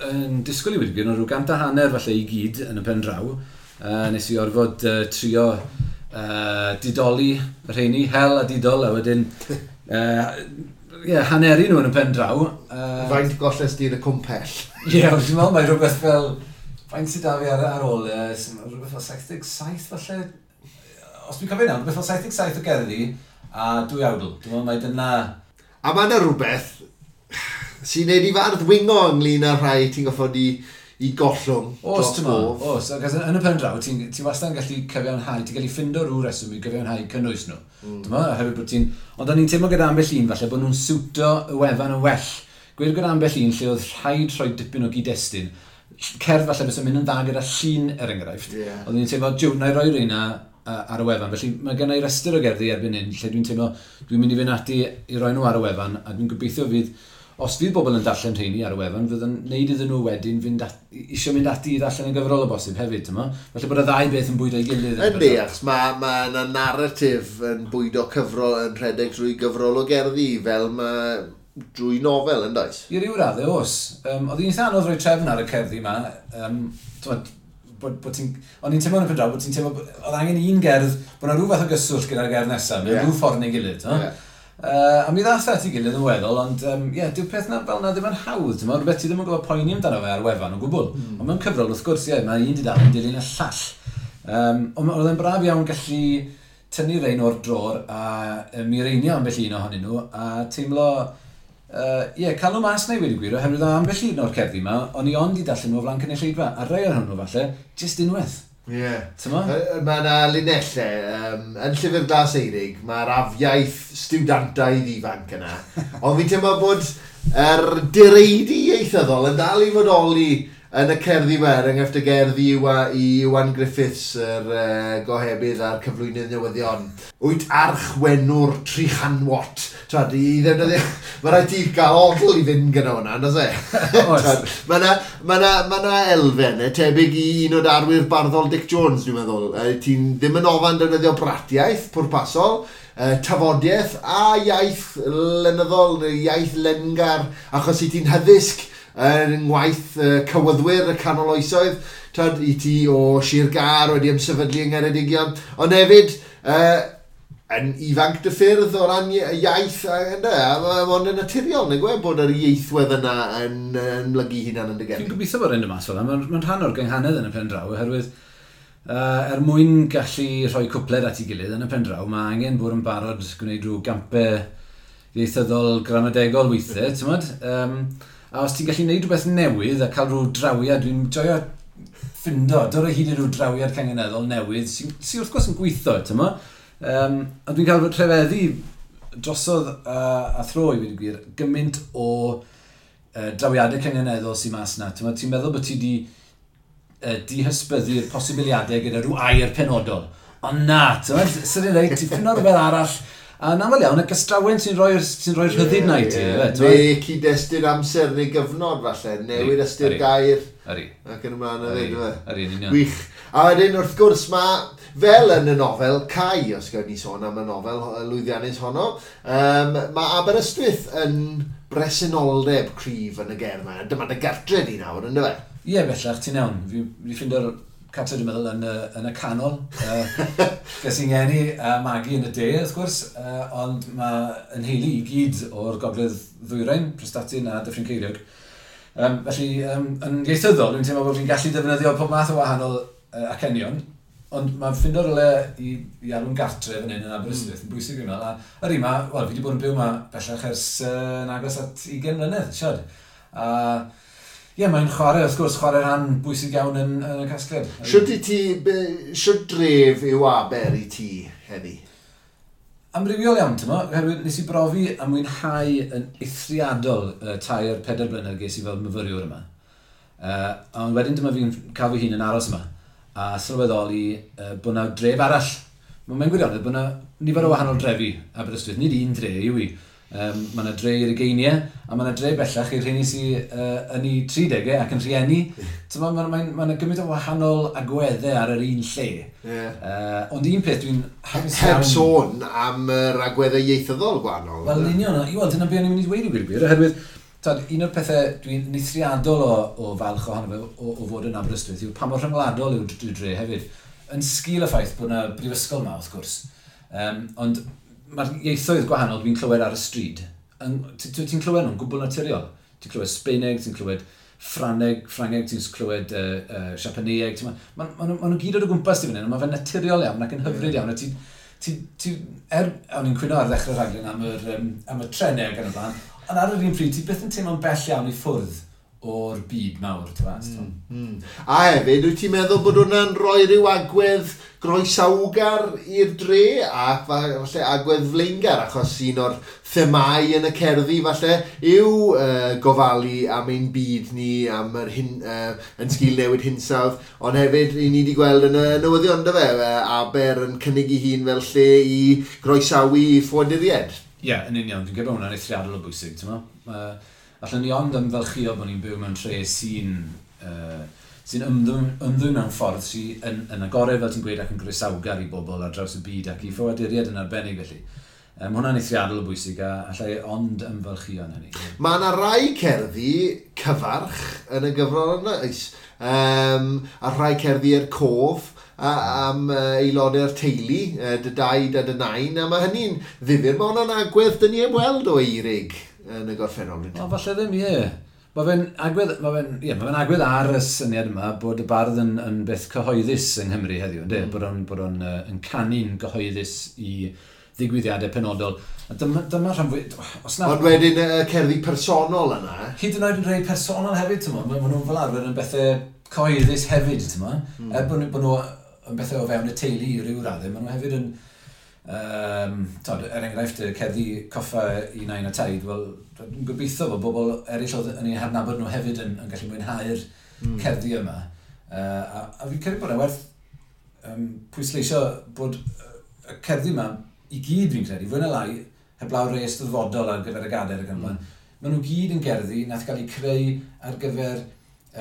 yn disgwyl i wedi gwir, rhyw 150 falle i gyd yn y pen draw. Nes i orfod trio didoli y rheini, hel a didol, a wedyn yeah, haneru nhw yn y pen draw. Faint golles di yn y cwmpell? Ie, yeah, dwi'n meddwl mae rhywbeth fel. Faint sydd da fi ar ôl? Rhywbeth fel 77 falle? Os dwi'n cofio nawr, rhywbeth fel 77 o gerddi a dwy awdl. Dwi'n meddwl mai dyna. A mae yna rhywbeth sy'n neud i fardd wingo ynglyn â rhai ti'n goffod i gollwng Os, ti'n meddwl, os. Ac yn y pen draw, ti'n ti wastad yn gallu cyfiawnhau, ti'n gallu ffindo rhyw reswm i gyfiawnhau cynnwys nhw. Ti'n meddwl, oherwydd bod ti'n. Ond o'n i'n teimlo gyda ambell un falle bod nhw'n siwto y wefan yn well. Gweud gyda ambell un lle oedd rhaid rhoi dipyn o gyd-destun. Cerdd falle fysa'n mynd yn dda gyda llun er enghraifft. Oedden ni'n teimlo, jiw, na i roi reina ar y wefan. Felly mae gen i restr o gerddi erbyn hyn lle dwi'n teimlo dwi'n mynd i fynd ati i roi nhw ar y wefan a dwi'n gobeithio fydd, os fydd bobl yn darllen rheini ar y wefan, fydd yn neud iddyn nhw wedyn fynd eisiau mynd ati i ddarllen y gyfrol o bosib hefyd, ti'n mo? Felly bod y ddau beth yn bwydo ei gilydd. Yndi, achos mae yna narratif yn bwydo cyfrol, yn rhedeg drwy gyfrol o gerddi, fel mae drwy nofel, yn does? I ryw raddau, oes. Oedd hi'n eitha anodd rhoi trefn ar y cerddi yma. T'mod, bod ti'n. O'n i'n teimlo yn y pen draw, bod ti'n teimlo, oedd angen un gerdd, bod yna rhyw fath o gyswllt gyda'r gerdd nesaf, mewn rhyw ffordd neu gilydd. Ie. A mi ddath at ei gilydd yn weddol, ond yeah, dyw'r peth na fel na ddim yn hawdd, ti'n rhywbeth ti ddim yn gwybod poeni amdano fe ar wefan o gwbl. Ond mewn cyfrol, wrth gwrs, ie, mae un dudalen yn dilyn y llall. Ond oedd e'n braf iawn gallu tynnu rein o'r dror a mireinio ambell un ohonyn nhw a teimlo, ie, cael nhw mas na i wedi gwir, oherwydd o ambell un o'r cerddi yma, o'n i ond i darllen nhw o flaen cynulleidfa, a rai ohonyn nhw falle, jyst unwaith. Ie. Yeah. Mae yna linellau, yn Llyfr Glas Eirig, mae'r afiaith stiwdantaidd ifanc yna. Ond fi'n teimlo bod yr direidi ieithyddol yn dal i fodoli yn y cerddi yma, er enghraifft y gerddi i Iwan Griffiths, yr gohebydd a'r cyflwynydd newyddion. Wyt archwenwr trichanwot. Twad, i ddefnyddio. Mae rhaid ti gael odl i fynd gyda hwnna, on'd oes e? Oes. Mae yna ma na, ma na elfennau tebyg i un o darwyr barddol Dic Jones, dwi'n meddwl. Ti'n ddim yn ofan defnyddio bratiaeth pwrpasol, tafodiaeth a iaith lenyddol, neu iaith lengar, achos i ti'n hyddysg yn ngwaith cywyddwyr y canol oesoedd, twad, i ti o Sir Gâr wedi ymsefydlu yng Ngheredigion, ond hefyd yn ifanc dy ffyrdd o ran iaith, ynde, a mae'n yn naturiol, neu gwe, bod yr ieithwedd yna yn mlygu hunan yn dy Fi'n gerddi. gobeithio bod e'n dod mas fel 'na. Mae'n rhan o'r gynghanedd yn y pen draw, oherwydd er mwyn gallu rhoi cwpled at ei gilydd yn y pen draw, mae angen bod yn barod gwneud rhyw gampau ieithyddol gramadegol weithiau, ti'n modd? A os ti'n gallu gwneud rhywbeth newydd a cael rhyw drawiad, dwi'n joio ffindo, dod o hyd i ryw drawiad cangeneddol newydd sy'n sy wrth gwrs yn gweithio, ti'n mo? A dwi'n cael fy rhyfeddu drosodd a thro i wedi gwir, gymaint o drawiadau cynganeddol sy'n mas na. Ti'n ti meddwl bod ti wedi dihysbyddu'r posibiliadau gyda rhyw air penodol. Ond na, ti'n meddwl, sy'n reit, ti'n ffindo rhywbeth arall. A yn aml iawn, y gystrawen sy'n rhoi'r sy rhoi rhyddid na i ti. Neu cyd-destun amser neu gyfnod falle, newid ystyr gair. Yri. Ac yn ymlaen o ddweud, Yri, yn union. Gwych. A wedyn, wrth gwrs, mae, fel yn y nofel, Cai, os gawn ni sôn am y nofel lwyddiannus honno, mae Aberystwyth yn bresenoldeb cryf yn y gerdd yma. Dyma dy gartre di nawr, ynddo fe? Ie, bellach, ti'n iawn. Fi ffindo'r cartre, dwi'n meddwl, yn y canol. Ges i'n ngeni a magu yn y de, wrth gwrs, ond mae yn heili i gyd o'r gogledd ddwyrain, Prestatyn a Dyffryn Ceiriog. Felly, yn ieithyddol, dwi'n teimlo bod fi'n gallu defnyddio pob math o wahanol acenion, ond mae'n ffindo rywle i alw'n gartre fan hyn yn Aberystwyth yn bwysig fi'n meddwl. A yr un ma, wel, fi wedi bod yn byw yma bellach ers yn agos at 20 mlynedd, siad. A ie, mae'n chwarae, wrth gwrs, chwarae rhan bwysig iawn yn y casgliad. Shwt dref yw Aber i ti heddi? Amrywiol iawn, ti'n mo, oherwydd nes i brofi a mwynhau yn eithriadol 3-4 blynedd ges i fel myfyriwr yma. Ond wedyn dyma fi'n cael fy hun yn aros yma a sylweddoli bod yna dref arall. Mae'n gwirionedd bod yna nifer o wahanol drefi Aberystwyth, nid un dre yw i. Mae yna dre i'r ugeiniau, a mae yna dre bellach i'r rheini sydd yn eu 30au ac yn rhieni. Mae yna gymaint o wahanol agweddau ar yr un lle. Yeah. Ond un peth dwi'n hapus iawn... Heb sôn am yr agweddau ieithyddol gwahanol. Wel, yn union, i weld, dyna be o'n i'n mynd i dweud i gwir gwir, oherwydd tad, un o'r pethau dwi'n eithriadol o falch ohono fe o fod yn Aberystwyth yw pa mor rhyngwladol yw'r dre hefyd. Yn sgil y ffaith bod yna brifysgol yma, wrth gwrs. Ond mae'r ieithoedd gwahanol dwi'n clywed ar y stryd, ti'n clywed nhw'n gwbl naturiol. Ti'n clywed Sbeineg, ti'n clywed Ffrangeg, ti'n clywed Siapaneg. Ma nhw gyd o'r gwmpas ti fan hyn, a mae fe'n naturiol iawn ac yn hyfryd iawn. A o'n i'n cwyno ar ddechrau'r rhaglen am y trenau ac yn y blaen, ond ar yr un pryd, ti byth yn teimlo'n bell iawn i ffwrdd o'r byd mawr, ti'n fas. A hefyd, wyt ti'n meddwl bod hwnna'n rhoi rhyw agwedd groesawgar i'r dre ac falle agwedd flaengar, achos un o'r themau yn y cerddi falle yw gofalu am ein byd ni, am yr yn sgil newid hinsawdd, ond hefyd i ni wedi gweld yn y newyddion, dy fe, Aber yn cynnig ei hun fel lle i groesawu ffoaduriaid. Ie, yn union, dwi'n credu bod hwnna'n eithriadol o bwysig, ti'n mo? Allen ni ond ymfalchïo bod ni'n byw mewn tre sy'n ymddwyn mewn ffordd sy'n yn agored, fel ti'n gweud, ac yn groesawgar i bobl ar draws y byd ac i ffoaduriaid yn arbennig felly. Mae hwnna'n eithriadol o bwysig a allai ond ymfalchïo yn hynny. Mae yna rai cerddi cyfarch yn y gyfrol yna, a rhai cerddi er cof am aelodau'r teulu, dy daid a dy nain, a mae hynny'n ddifyr. Mae hwnna'n agwedd dyn ni heb weld o Eurig yn y gorffennol. O, falle ddim, ie. Mae fe'n agwedd ar y syniad yma bod y bardd yn beth cyhoeddus yng Nghymru heddiw, yndê? Bod o'n yn canu'n gyhoeddus i ddigwyddiadau penodol. A dyma rhan fwy... Ond wedyn y cerddi personol yna. Hyd yn oed yn rhai personol hefyd, ti'n mo. Maen nhw'n fel arfer yn bethau cyhoeddus hefyd, ti'n mo. Er bod nhw yn bethau o fewn y teulu i ryw raddau, maen nhw hefyd yn... er enghraifft, y cerddi coffa i nain a taid, wel, dwi'n gobeithio bod bobl eraill oedd yn eu hadnabod nhw hefyd yn gallu mwynhau'r cerddi yma. A fi'n credu bod e werth pwysleisio bod y cerddi yma i gyd, fi'n credu, fwy na lai, heblaw rhai eisteddfodol ar gyfer y gadair ac yn blaen, maen nhw gyd yn gerddi nath gael eu creu ar gyfer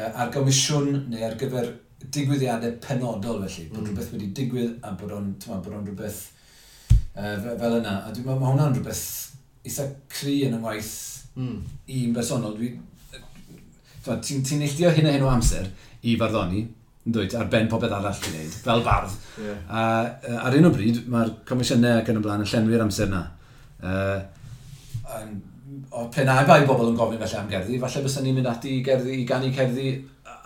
ar gomisiwn neu ar gyfer digwyddiadau penodol felly, bod rhywbeth wedi digwydd a bod o'n rhywbeth fel yna. A dwi'n meddwl mae hwnna'n rhywbeth eitha cry yn y ngwaith i'n bersonol. Ti'n neilltuo hyn a hyn o amser i farddoni, yn dweud, ar ben popeth arall ti'n neud, fel bardd. Yeah. A ar un o bryd, mae'r comisiynau ac yn y blaen yn llenwi'r amser na. O pe na bai bobl yn gofyn felly am gerddi, falle bysen ni'n mynd ati i ganu cerddi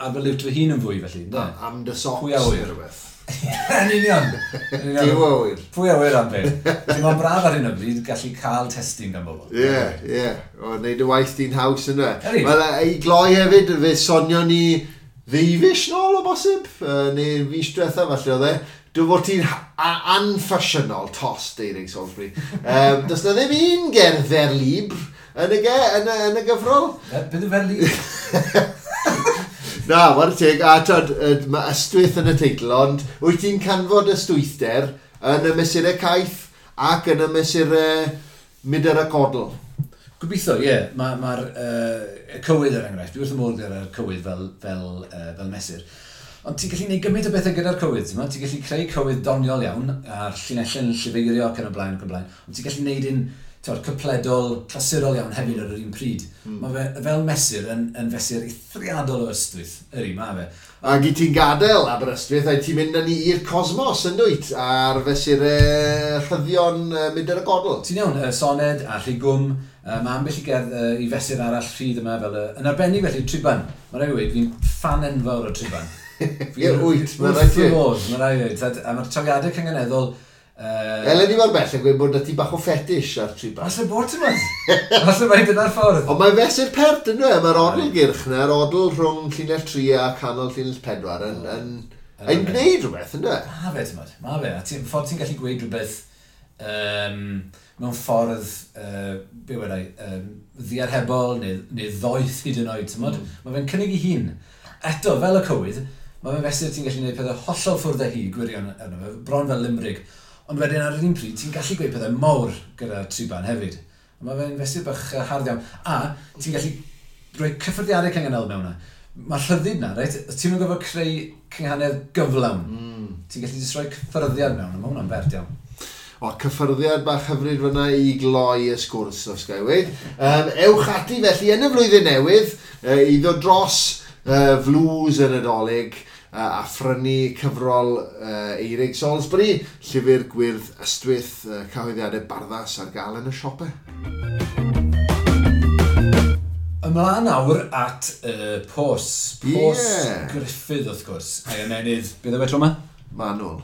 ar fy liwt fy hun yn fwy felly. Am dy socks neu rhywbeth. Yn union. Dim awyr. Pwy awyr am beth. Ti'n ma'n braf ar hyn o bryd gallu cael testyn gan bobl. Ie, ie. O, wneud y waith di'n haws yna. Wel, i gloi hefyd, fe sonio ni Ddeufis nôl o bosib, neu fis diwetha falle oedd e. Dwi'n fod ti'n anffasiynol tost, Eirig Salisbury. Does na ddim un gerdd vers libre yn y, ge, yn y, yn y gyfrol. Beth yw vers libre? Na, whare teg, a tod, mae ystwyth yn y teitl, ond wyt ti'n canfod ystwythder yn y mesurau caeth ac yn y mesurau mudr a codl? Gobeithio, ie. Yeah. Mae'r ma cywydd er enghraifft, dwi wrth y modd gyda'r cywydd fel mesur. Ond ti'n gallu gwneud gymaint o bethau gyda'r cywydd, ti'n ti'n gallu creu cywydd doniol iawn, a'r llinellau'n llifeirio ac yn y blaen ac yn y blaen, ond ti'n gallu gwneud un t'wod, cypledol, clasurol iawn hefyd ar yr un pryd. Mae fe fel mesur yn fesur eithriadol o ystwyth, yri, mae fe. Ac i ti'n gadael Aberystwyth, a ti'n mynd â ni i'r cosmos yn dwyt, ar fesurau rhyddion mudr y godl. Ti'n iawn, soned a rhigwm, mae ambell i gerdd i fesur arall rhydd yma fel, yn arbennig felly, triban. Mae rhaid i weud, fi'n ffan enfawr o triban. Ie, wyt, mae rhaid i. Wrth fy modd, mae rhaid i weud. A mae'r trawiadau cynganeddol. Eleni mor bell yn gweud bod 'na ti bach o fetish ar triban. Falle bod ti'n mynd. Falle mai dyna'r ffordd. Ond mae'n fesur pert yn dweud, mae'r odl gyrch na, yr odl rhwng llinell 3 a canol llinell 4 yn gwneud rhywbeth, yn dweud? Ma fe, ti'n mynd, ma fe. A ffordd ti'n gallu gweud rhywbeth mewn ffordd, be wedai, ddiarhebol neu ddoeth hyd yn oed, ti'n mynd? Mae fe'n cynnig ei hun. Eto, fel y cywydd, mae fe'n fesur ti'n gallu gwneud pethau hollol ffwrdd â hi, gwirion arno fe, bron fel limrig. Ond wedyn ar yr un pryd, ti'n gallu gweud pethau mawr gyda triban hefyd. A mae fe'n fesur bach hardd iawn. A ti'n gallu rhoi cyffyrddiadau cynganel mewn yna. Mae rhyddid na, reit? Ti'n mynd gorfod creu cynghanedd gyflawn. Ti'n gallu jyst rhoi cyffyrddiad mewn, a mae hwnna'n bert iawn. O, cyffyrddiad bach hyfryd fyna i gloi y sgwrs, os ga i weud. Ewch ati felly yn y flwyddyn newydd i ddod dros flws y Nadolig a phrynu cyfrol Eirig Salisbury, llyfr gwyrdd ystwyth, cyhoeddiadau Barddas ar gael yn y siopau. Ymlaen nawr at y pos. Pos Gruffydd, wrth gwrs. A'i ymenydd, beth yw e tro yma? Manwl.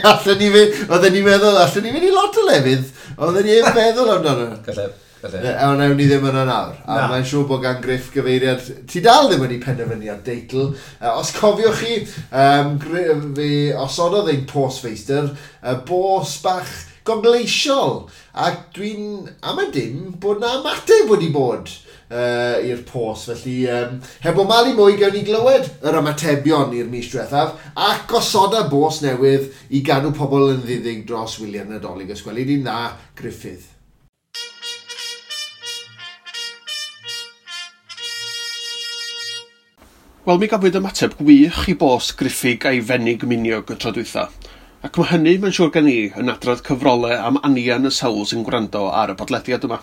Allen ni fynd, oedden ni'n meddwl, allen ni fynd i lot o lefydd, oedden ni ddim meddwl amdano. Gallai. Ond ewn ni ddim yna nawr. A mae'n siŵr bod gan Griff gyfeiriad... Ti dal ddim wedi penderfynu ar deitl. Os cofiwch chi, fe osododd ein postfeistr, bos bach gogleisiol. Ac dwi'n am y dim bod na ymateb wedi bod i'r pos. Felly, heb o malu mwy, gawn ni glywed yr ymatebion i'r mis diwethaf ac gosoda bos newydd i gadw pobl yn ddiddig dros wyliau'r Nadolig. Os gweli di'n dda, Gruffydd. Wel, mi gafwyd ymateb gwych i bos Gruffydd a'i fenig miniog y tro dwytha. Ac mae hynny, mae'n siŵr gen i, yn adrodd cyfrolau am anian y sawl sy'n gwrando ar y podlediad yma.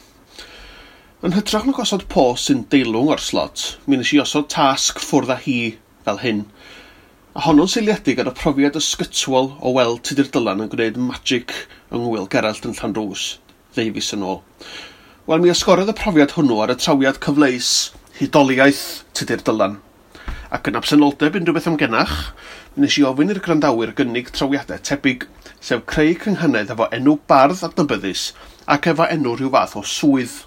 Yn hytrach na gosod pos sy'n deilwng o'r slot, mi nes i osod tasg ffwrdd â hi fel hyn. A honno'n seiliedig ar y profiad ysgytwol o weld Tudur Dylan yn gwneud magic yng Ngŵyl Gerallt yn Llanrws, ddeufis yn ôl. Wel, mi esgorodd y profiad hwnnw ar y trawiad cyfleus hudoliaeth Tudur Dylan. Ac yn absenoldeb unrhyw beth amgenach, mi nes i ofyn i'r gwrandawyr gynnig trawiadau tebyg, sef creu cynghanedd efo enw bardd adnabyddus ac efo enw rhyw fath o swydd.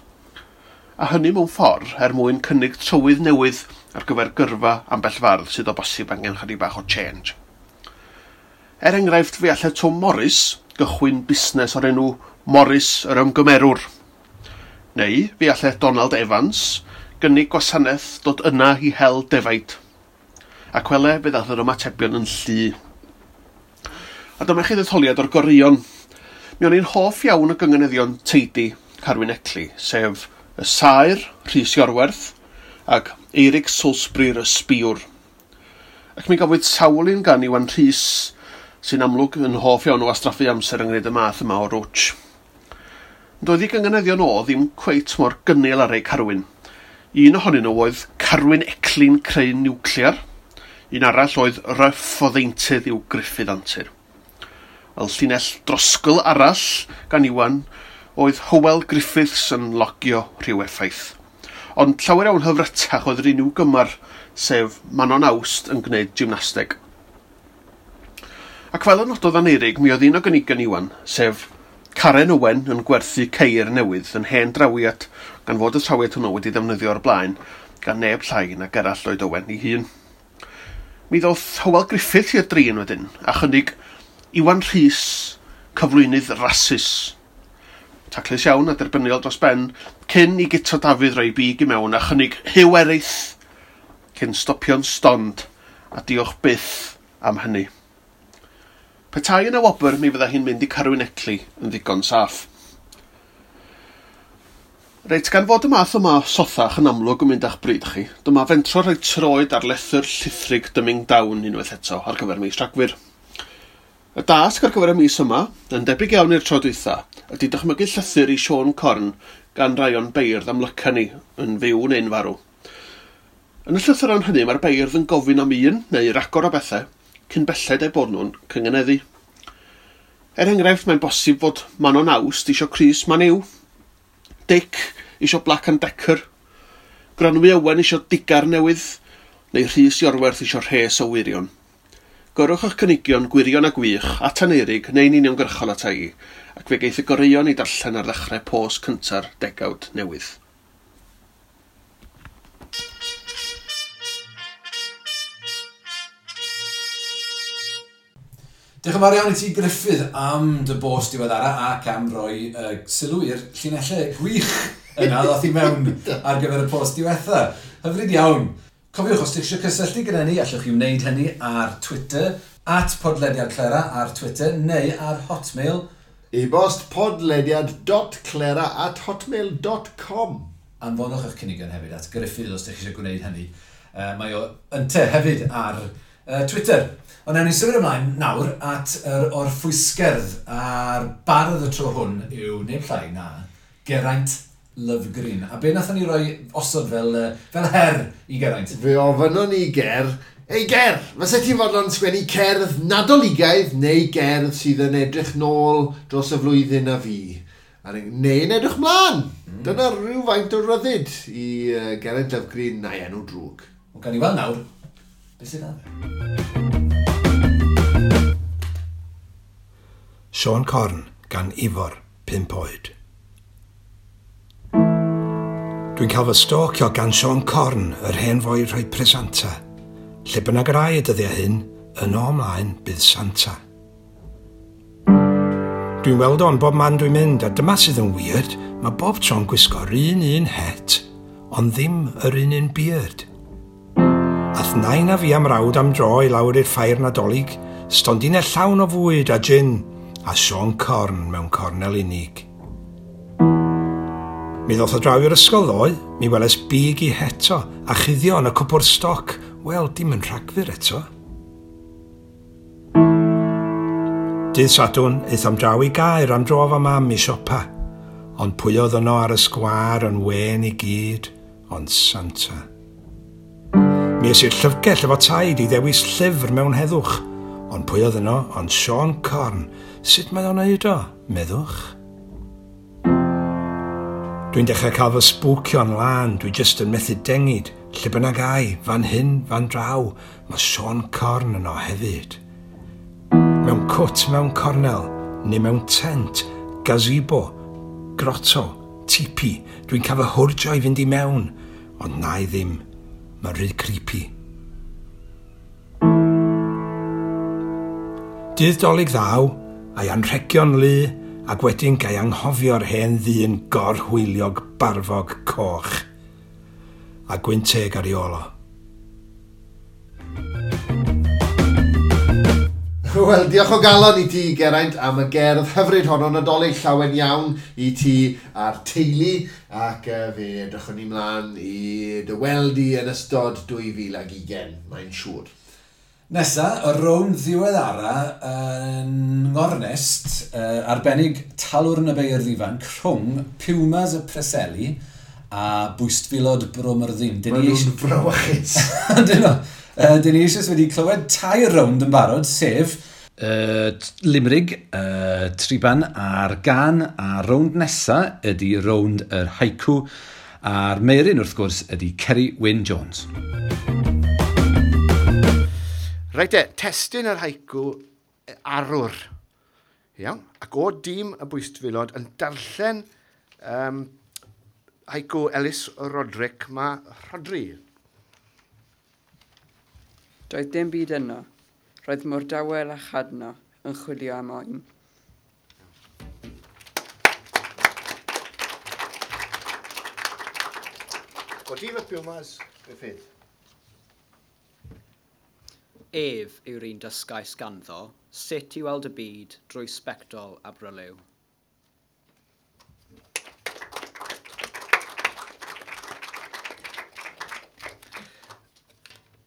A hynny mewn ffordd er mwyn cynnig trywydd newydd ar gyfer gyrfa ambell fardd sydd o bosib angen chydig bach o change. Er enghraifft, fe allai Tom Morris gychwyn busnes o'r enw Morris yr Ymgymerwr. Neu fe allai Donald Evans gynnig gwasanaeth dod yna i hel defaid. Ac wele, fe ddaeth yr ymatebion yn llu. A dyma chi ddetholiad o'r goreuon. Mi o'n i'n hoff iawn o gynganeddion teidi Carwyn Ecli, sef y Saer, Rhys Iorwerth, ac Eirig Salisbury'r Ysbïwr. Ac mi gafwyd sawl un gan Iwan Rhys, sy'n amlwg yn hoff iawn o wastraffu amser yng ngwneud y math yma o rwtsh. Doedd ei gynganeddion o ddim cweit mor gynnil ar ei Carwyn. Un ohonyn nhw oedd Carwyn Ecli'n creu niwclear. Un arall oedd Ryff o ddeintydd i'w Gruffydd Antur. Wel, llinell drosgl arall gan Iwan oedd Hywel Griffiths yn logio rhyw effaith. Ond llawer iawn hyfrytach oedd yr un i'w gymar, sef Manon Awst yn gwneud gymnasteg. Ac fel y nododd Aneurig, mi oedd un o gynigion Iwan, sef Karen Owen yn gwerthu ceir newydd yn hen drawiad, gan fod y trawiad hwnnw wedi ddefnyddio o'r blaen gan neb llai na Gerallt Lloyd Owen ei hun. Mi ddoth Hywel Griffith i'r drin wedyn, a chynnig Iwan Rhys, cyflwynydd rasus. Taclus iawn a derbyniol dros ben, cyn i Guto Dafydd roi big i mewn a chynnig Huw Erith, cyn stopio'n stond, a diolch byth am hynny. Petai yna wobr, mi fydda hi'n mynd i Carwyn Ecley yn ddigon saff. Reit, gan fod y math yma o sothach yn amlwg yn mynd â'ch bryd chi, dyma fentro rhoi troed ar lethr llithrig Dyming Down unwaith eto ar gyfer mis Rhagfyr. Y dasg ar gyfer y mis yma, yn debyg iawn i'r tro dwytha, ydy dychmygu llythyr i Siôn Corn gan rai o'n beirdd amlyca ni, yn fyw neu'n farw. Yn y llythyron hynny mae'r beirdd yn gofyn am un neu ragor o bethau cyn belled eu bod nhw'n cyngeneddu. Er enghraifft, mae'n bosib fod Manon Awst isio crys Man U, Dic isio Black and Decker, Gronwy Owen isio digar newydd, neu Rhys Iorwerth isio rhes o wirion. Gyrrwch eich cynigion gwirion a gwych at Aneurig neu'n uniongyrchol ata i, ac fe geith y goreuon i darllen ar ddechrau post cynta'r degawd newydd. Diolch yn fawr iawn i ti, Gruffydd, am dy bost diweddara ac am roi sylw i'r llinellau gwych yna ddoth i mewn ar gyfer y post diwetha. Hyfryd iawn. Cofiwch, os ydych eisiau cysylltu gyda ni, allwch chi wneud hynny ar Twitter, @podlediadclera ar Twitter, neu ar Hotmail. E-bost podlediad.clera@hotmail.com. Anfonwch eich cynigion hefyd at Gruffydd os ydych chi eisiau gwneud hynny. Mae o ynte hefyd ar Twitter. Ond ewn ni symud ymlaen nawr at yr orffwysgerdd, a'r bardd y tro hwn yw neb llai na Geraint Lovgreen. A be nathon ni roi osod fel her i Geraint? Fe ofynnon ni Ger, "Ei Ger, fysa ti'n fodlon sgwennu cerdd Nadoligaidd neu gerdd sydd yn edrych nôl dros y flwyddyn a fi? Neu'n edrych mlaen." Dyna rhywfaint o ryddid i Geraint Lovgreen na'i enw drwg. Wel, gawn ni weld nawr beth sydd ar fe. Siôn Corn gan Ifor, 5 oed. Dwi'n cael fy stalkio gan Siôn Corn, yr hen foi rhoi presanta. Lle bynnag yr ai y dyddiau hyn, yno ymlaen bydd Santa. Dwi'n weld o'n bob man dwi'n mynd, a dyma sydd yn weird, mae bob tro'n gwisgo'r un het, ond ddim yr un beard. Ath nain a fi am rawd am dro i lawr i'r ffair Nadolig, stondinau llawn o fwyd a gin, a Siôn Corn mewn cornel unig. Mi ddoth o draw i'r ysgol ddoe, mi weles big i heto, a chuddio yn y cwpwrdd stoc, wel, dim yn Rhagfyr eto. Dydd Sadwrn, aethom draw i Gaer am dro efo mam i siopa, ond pwy oedd yno ar y sgwâr yn wên i gyd, ond Santa. Mi es i'r llyfrgell efo taid i ddewis llyfr mewn heddwch, ond pwy oedd yno ond Siôn Corn. Sut mae o'n neud o, meddwch? Dwi'n dechrau cael fy sbwcio'n lân, dwi jyst yn methu dengid. Lle bynnag ai, fan hyn, fan draw, mae Siôn Corn yno hefyd. Mewn cwt mewn cornel, neu mewn tent, gazebo, grotto, tipi, dwi'n cael fy hwrjo i fynd i mewn, ond na i ddim, mae'n rhy creepy. Dydd Dolig ddaw, a'i anrhegion lu, ac wedyn gai anghofio'r hen ddyn gorhwyliog barfog coch, a gwynteg ar ei ôl o. Wel, diolch o galon i ti, Geraint, am y gerdd hyfryd honno Nadolig llawen iawn i ti a'r teulu, ac fe edrychwn ni mlaen i dy weld i yn ystod 2020, mae'n siŵr. Nesa, y rownd ddiweddara yn ngornest arbennig Talwrn y Beirdd Ifanc rhwng Pumas y Preseli a Bwystfilod Bro Myrddin. Maen nhw'n frawychus. Dyn nhw. Dyn ni eisoes wedi clywed 3 rownd yn barod, sef Limrig, Triban a'r Gan, a rownd nesa ydy rownd yr haiku, a'r Meiryn wrth gwrs ydy Ceri Wyn Jones. Reit e, testun yr haiku arwr. Iawn, ac o dîm y Bwystfilod yn darllen haiku Ellis Roderick, mae Rhodri. Doedd dim byd yno. Roedd mor dawel a chadno yn chwilio am oen. O ti fy Pumas, Griffith? Ef yw'r un dysgais ganddo sut i weld y byd drwy sbectol a bryliw.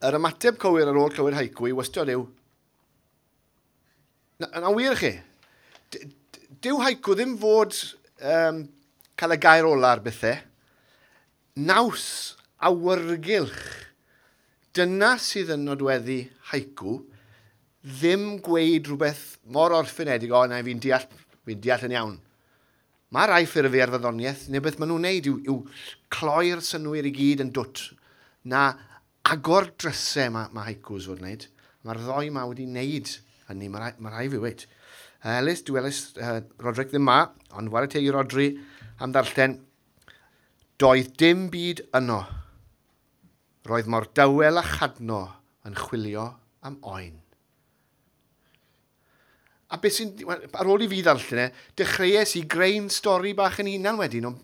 Yr ymateb cywir ar ôl clywed haiku i wastad yw... Na, na wir chi. Dyw haiku ddim fod cael y gair ola ar bethau. Naws awyrgylch. Dyna sydd yn nodweddu haiku. Ddim gweud rhywbeth mor orffenedig, o na, fi'n deall, fi deall yn iawn. Mae rai ffurfiau ar fyddoniaeth, neu beth maen nhw'n neud yw cloi'r synwyr i gyd yn dwt. Na agor drysau mae haikus fod wneud. Mae'r ddoi ma wedi wneud hynny, mae rai fi weid. Ellis, dwi Ellis, Roderick ddim ma, ond ware teg i Rodri am ddarllen. Doedd dim byd yno. Roedd mor dawel a chadno yn chwilio am oen. A beth sy'n... Ar ôl i fi ddarllen e, dechreuais i greu'n stori bach yn hunan wedyn, ond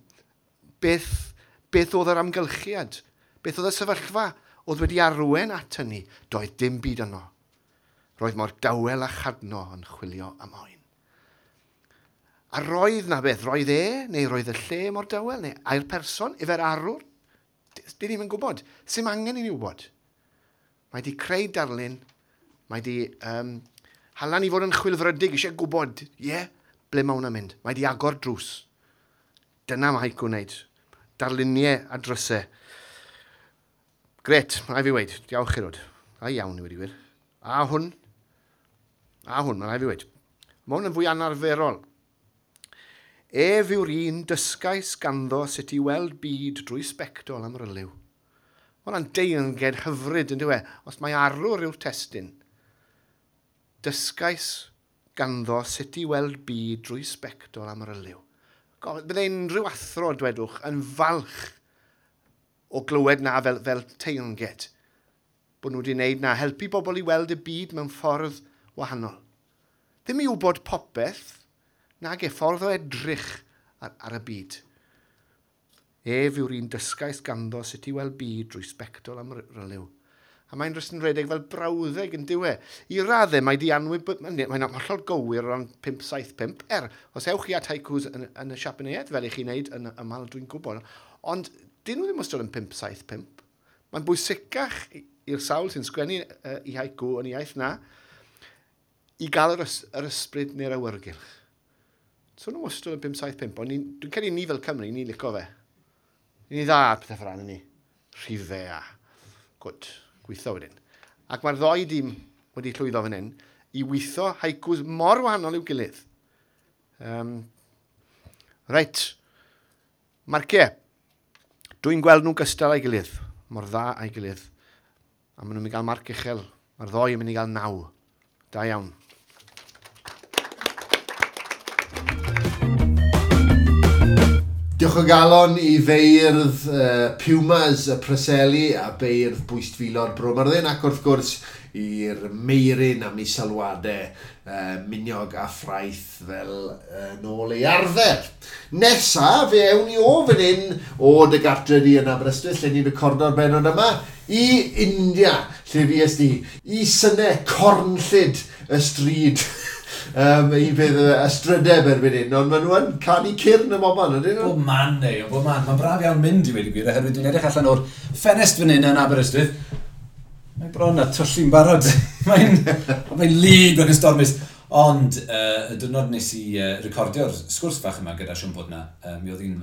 beth oedd yr amgylchiad? Beth oedd y sefyllfa oedd wedi arwain at hynny? Doedd dim byd yno. Roedd mor dawel a chadno yn chwilio am oen. A roedd na beth, roedd e, neu roedd y lle mor dawel, neu ai'r person, efo'r arwr? Dyn ni'm yn gwybod. Sim angen i ni wybod. Mae di creu darlun, mae di hala ni fod yn chwilfrydig, eisiau gwybod, ie, ble mae hwnna'n mynd. Mae di agor drws. Dyna mae haiku'n wneud. Darluniau a drysau. Gret, mae fi weid. Diolch chi rod. A iawn i wedi gwir. A hwn, mae rhaid fi weid. Mae hwn yn fwy anarferol. Ef yw'r un dysgais ganddo sut i weld byd drwy sbectol am ryliw. Mae hwnna'n deyrnged hyfryd yn dyw e, os mae arwr yw'r testun. Dysgais ganddo sut i weld byd drwy sbectol am ryliw. Bydde unrhyw athro, dwedwch, yn falch o glywed na fel teyrnged. Bod nhw wedi wneud na, helpu bobl i weld y byd mewn ffordd wahanol. Ddim i wybod popeth, nag e ffordd o edrych ar y byd. Ef yw'r un dysgais ganddo sut i weld byd drwy sbectol am ryliw. A mae'n jyst yn rhedeg fel brawddeg yn dyw e. I raddau mae di mae'n hollol gywir o ran 575. Os ewch chi at haikus yn y Siapaneiaeth, fel i chi'n neud yn ymal, dwi'n gwybod. Ond dyn nhw ddim wastad yn 575. Mae'n bwysicach i'r sawl sy'n sgwennu i haiku yn iaith na i gael yr ysbryd neu'r awyrgylch. So nhw wastad yn 575, ond dwi'n credu ni fel Cymru, ni'n licio fe. Ni dda ar pethau fel ni. Rhifau a gwd, gweithio wedyn. Ac mae'r ddoi dîm wedi llwyddo fan hyn i weithio haikus mor wahanol i'w gilydd. Reit, marciau. Dwi'n gweld nhw'n gystal a'i gilydd, mor dda a'i gilydd. A maen nhw'n mynd i gael marc uchel. Mae'r ddoi yn mynd i gael 9. Da iawn. Diolch o galon i feirdd Pumas y Preseli a beirdd Bwystfilod Bro Myrddin ac wrth gwrs i'r Meirin am ei sylwadau miniog a ffraeth fel nôl ei arfer. Nesa, fe ewn ni o fan hyn o dy gartre di yn Aberystwyth, lle ni'n recordo'r bennod yma, i India, lle fues di, i synau cornllyd y stryd. I bydd ystrydeb erbyn hyn, ond maen nhw yn canu cyrn y moban, ydyn nhw? Bob man, neu, bob man. Mae'n braf iawn mynd i wedi gwir, oherwydd dwi'n edrych allan o'r ffenest fan hyn yn Aberystwyth. Mae bron a tyllu'n barod. Mae'n lyd ac yn stormus. Ond y diwrnod nes i recordio'r sgwrs fach yma gyda Siôn Bodna, mi oedd hi'n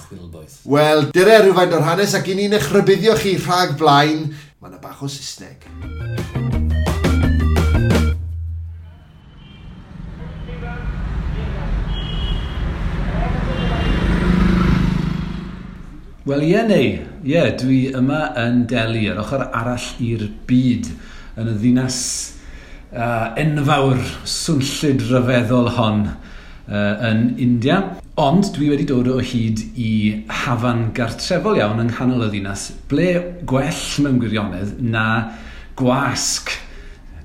chwilboeth. Wel, dyre rhywfaint o'r hanes ac i ni'n eich rhybuddio chi rhag blaen, mae yna bach o Saesneg. Wel, ie neu, ie, dwi yma yn Delhi, yr ochr arall i'r byd, yn y ddinas enfawr swnllyd ryfeddol hon yn India. Ond dwi wedi dod o hyd i hafan gartrefol iawn yng nghanol y ddinas, ble gwell mewn gwirionedd na Gwasg.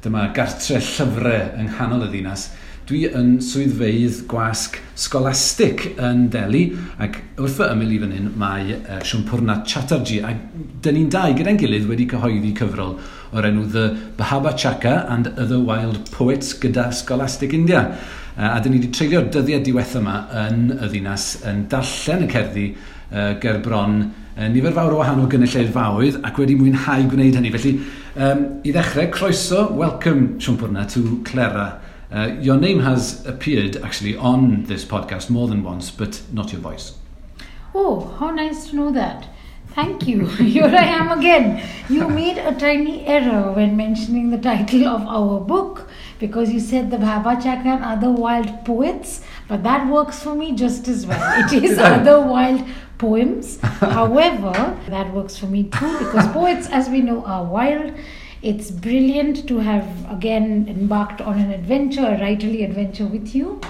Dyma gartre llyfrau yng nghanol y ddinas. Dwi yn swyddfeydd gwasg Scholastic yn Delhi, ac wrth fy ymyl i fan hyn mae Sampurna Chattarji, a dyn ni'n dau gyda'n gilydd wedi cyhoeddi cyfrol o'r enw The Bhaba Chaka and Other Wild Poets gyda Scholastic India. A dyn ni wedi treulio'r dyddiau diwetha yma yn y ddinas yn darllen y cerddi ger bron nifer fawr o wahanol gynulleidfaoedd ac wedi mwynhau gwneud hynny. Felly, i ddechrau, croeso, welcome Sampurna to Clera. Your name has appeared actually on this podcast more than once, but not your voice. Oh, how nice to know that. Thank you. Here I am again. You made a tiny error when mentioning the title of our book because you said the Bhaba Chaka and Other Wild Poets, but that works for me just as well. It is Other Wild Poems. However, that works for me too because poets, as we know, are wild. It's brilliant to have again embarked on an adventure, a writerly adventure with you.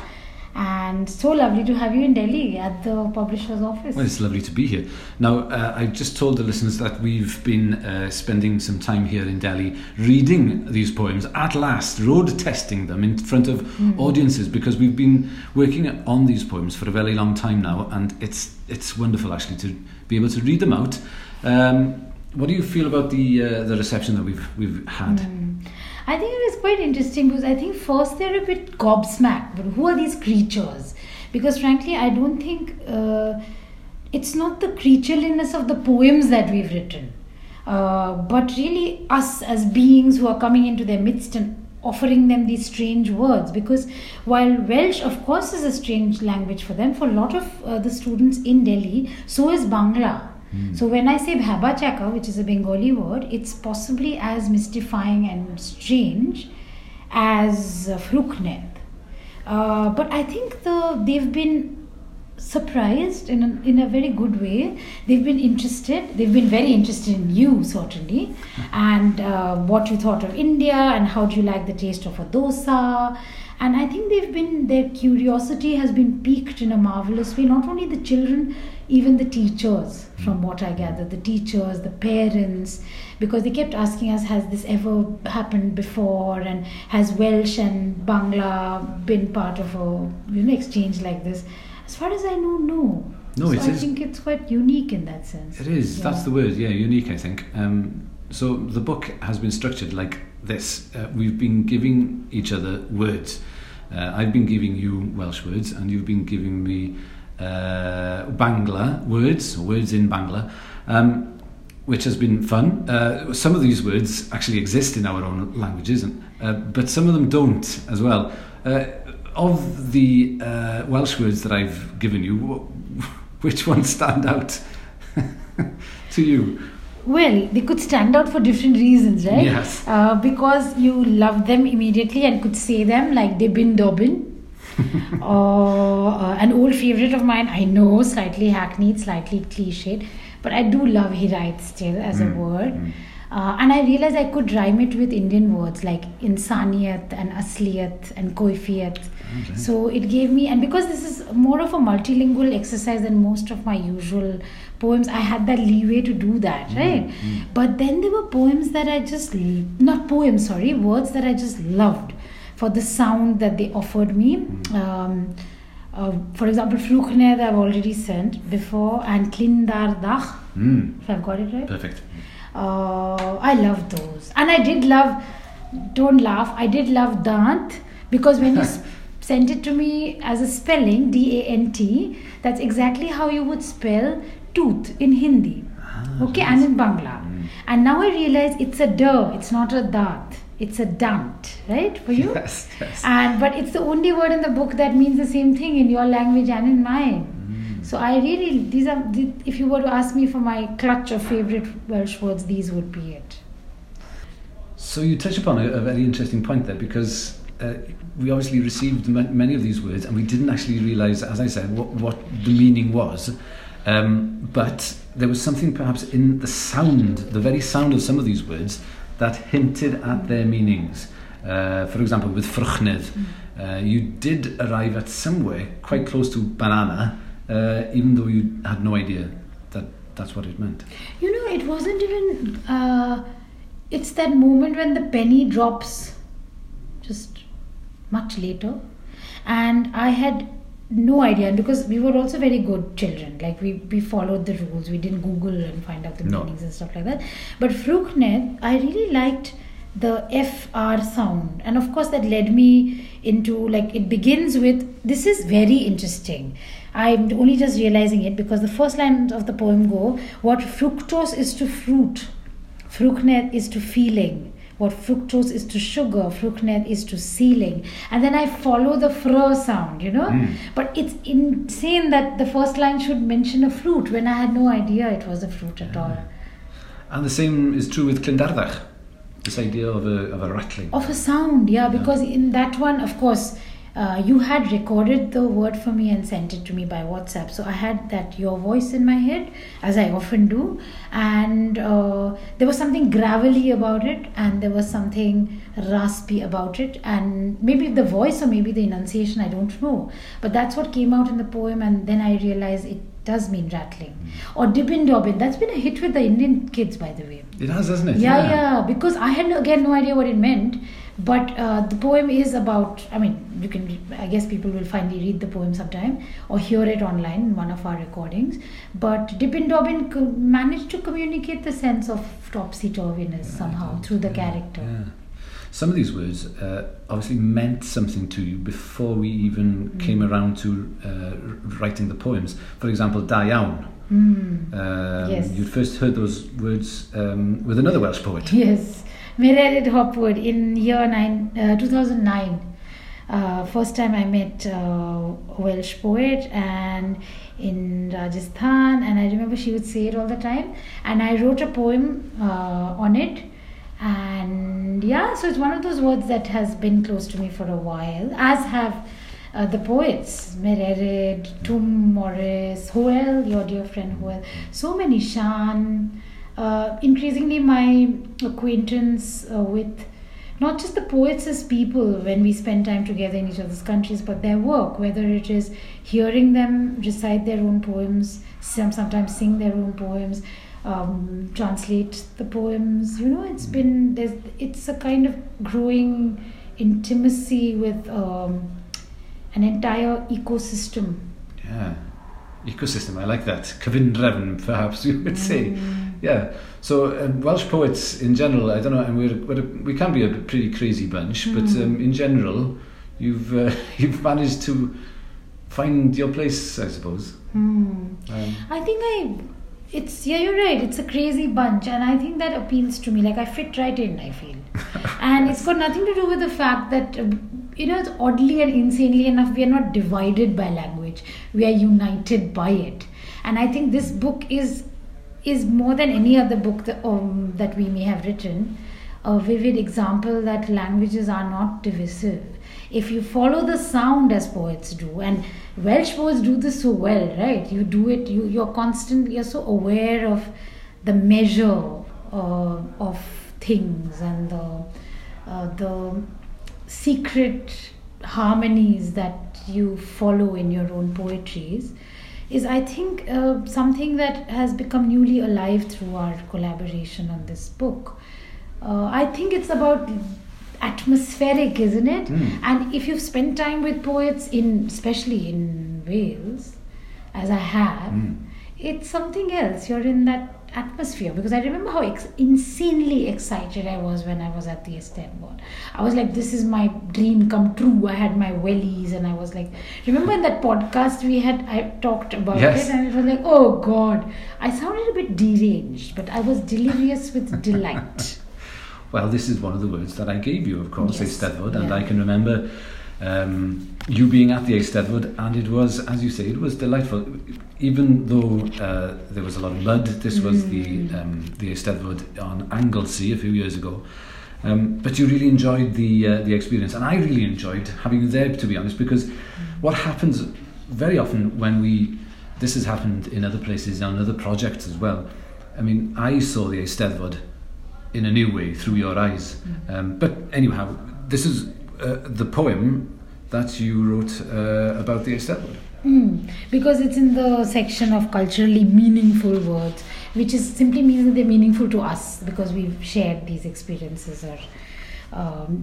And so lovely to have you in Delhi at the publisher's office. Well, it's lovely to be here. Now, I just told the listeners that we've been spending some time here in Delhi reading these poems, at last, road testing them in front of audiences, because we've been working on these poems for a very long time now, and it's wonderful actually to be able to read them out. What do you feel about the reception that we've had? I think it is quite interesting because I think first they're a bit gobsmacked. But who are these creatures? Because frankly, I don't think it's not the creatureliness of the poems that we've written, but really us as beings who are coming into their midst and offering them these strange words. Because while Welsh, of course, is a strange language for them, for a lot of the students in Delhi, so is Bangla. So when I say Bhaba Chaka, which is a Bengali word, it's possibly as mystifying and strange as Ffrwchnedd. But I think they've been surprised in a very good way. They've been interested. They've been very interested in you, certainly, and what you thought of India and how do you like the taste of a dosa. And I think their curiosity has been piqued in a marvelous way. Not only the children, even the teachers, from what I gather, the teachers, the parents, because they kept asking us, has this ever happened before? And has Welsh and Bangla been part of a exchange like this? As far as I know, no. No, so I think it's quite unique in that sense. It is. Yeah. That's the word, yeah, unique, I think. So the book has been structured like this. We've been giving each other words. I've been giving you Welsh words and you've been giving me Bangla words, or words in Bangla, which has been fun. Some of these words actually exist in our own languages, but some of them don't as well. Of the Welsh words that I've given you, which ones stand out to you? Well, they could stand out for different reasons, right? Yes. Because you love them immediately and could say them, like Dibin Dobin. Or an old favorite of mine, I know, slightly hackneyed, slightly cliched, but I do love Hiraeth still as a word. And I realized I could rhyme it with Indian words like insaniyat and asliyat and koifiyat. Okay. So it gave me, and because this is more of a multilingual exercise than most of my usual poems, I had that leeway to do that, right? But then there were poems that I just, not poems, sorry, words that I just loved for the sound that they offered me. For example, Ffrwchnedd I've already sent before, and Llyn-dar-dach, if I've got it right. Perfect. I love those. And I did love, don't laugh, I did love Dant, because when you sent it to me as a spelling, D-A-N-T, that's exactly how you would spell tooth in Hindi. Okay, and in Bangla. And now I realize it's a d, it's not a dat. It's a dant, right, for you? Yes, yes. But it's the only word in the book that means the same thing in your language and in mine. So I really, these are, if you were to ask me for my clutch of favorite Welsh words, these would be it. So you touch upon a very interesting point there, because we obviously received many of these words and we didn't actually realise, as I said, what the meaning was. But there was something perhaps in the sound, the very sound of some of these words, that hinted at their meanings. For example, with Ffrwchnedd, you did arrive at somewhere quite close to banana, even though you had no idea that that's what it meant. You know, it wasn't even... It's that moment when the penny drops just much later. And I had no idea, and because we were also very good children, like we followed the rules, we didn't Google and find out the meanings and stuff like that. But Ffrwchnedd, I really liked the FR sound, and of course that led me into, like, it begins with, this is very interesting, I'm only just realizing it, because the first lines of the poem go, what fructose is to fruit, Ffrwchnedd is to feeling. What fructose is to sugar, Ffrwchnedd is to ceiling. And then I follow the fr sound, you know. Mm. But it's insane that the first line should mention a fruit when I had no idea it was a fruit at all. And the same is true with Clyndarddach, this idea of a rattling. Of a sound, yeah, because in that one, of course, you had recorded the word for me and sent it to me by WhatsApp. So I had that your voice in my head, as I often do. And there was something gravelly about it, and there was something raspy about it. And maybe the voice or maybe the enunciation, I don't know. But that's what came out in the poem. And then I realized it does mean rattling. Or Dibin Dobbin. That's been a hit with the Indian kids, by the way. It has, hasn't it? Yeah. Because I had, again, no idea what it meant. But the poem is about, I mean, you can, I guess people will finally read the poem sometime or hear it online in one of our recordings. But Dibin Dobbin managed to communicate the sense of topsy-turviness somehow through the character. Yeah. Some of these words obviously meant something to you before we even came around to writing the poems. For example, da iawn. Yes. You'd first heard those words with another Welsh poet. Yes. Mererid Hopwood in year 2009. First time I met a Welsh poet, and in Rajasthan, and I remember she would say it all the time, and I wrote a poem on it. And yeah, so it's one of those words that has been close to me for a while, as have the poets, Mererid, Tum Morris, Hoel, your dear friend Hoel, so many, Shan. Increasingly my acquaintance with not just the poets as people when we spend time together in each other's countries, but their work, whether it is hearing them recite their own poems, sometimes sing their own poems, translate the poems, you know, it's been, it's a kind of growing intimacy with an entire ecosystem. Yeah, ecosystem, I like that. Cyfundrefn, perhaps you would say. Yeah, so Welsh poets in general, I don't know, and we can be a pretty crazy bunch, but in general, you've managed to find your place, I suppose. I think you're right, it's a crazy bunch, and I think that appeals to me. Like, I fit right in, I feel. And it's got nothing to do with the fact that, you know, it's oddly and insanely enough, we are not divided by language. We are united by it. And I think this book is more than any other book that, that we may have written, a vivid example that languages are not divisive. If you follow the sound as poets do, and Welsh poets do this so well, right? You do it, you're constantly, you're so aware of the measure of things and the secret harmonies that you follow in your own poetries is, I think, something that has become newly alive through our collaboration on this book. I think it's about atmospheric, isn't it? And if you've spent time with poets, especially in Wales, as I have, it's something else. You're in that atmosphere, because I remember how insanely excited I was when I was at the Eisteddfod. I was like, this is my dream come true. I had my wellies and I was like, remember in that podcast we had, I talked about it, and it was like, oh God, I sounded a bit deranged, but I was delirious with delight. Well, this is one of the words that I gave you, of course, yes. Eisteddfod, and I can remember you being at the Eisteddfod, and it was, as you say, it was delightful. Even though there was a lot of mud, this was the Eisteddfod on Anglesey a few years ago. But you really enjoyed the experience, and I really enjoyed having you there, to be honest, because what happens very often when this has happened in other places, on other projects as well. I mean, I saw the Eisteddfod in a new way through your eyes. But anyhow, this is the poem that you wrote about the Eisteddfod. Because it's in the section of culturally meaningful words, which is simply means that they're meaningful to us because we've shared these experiences or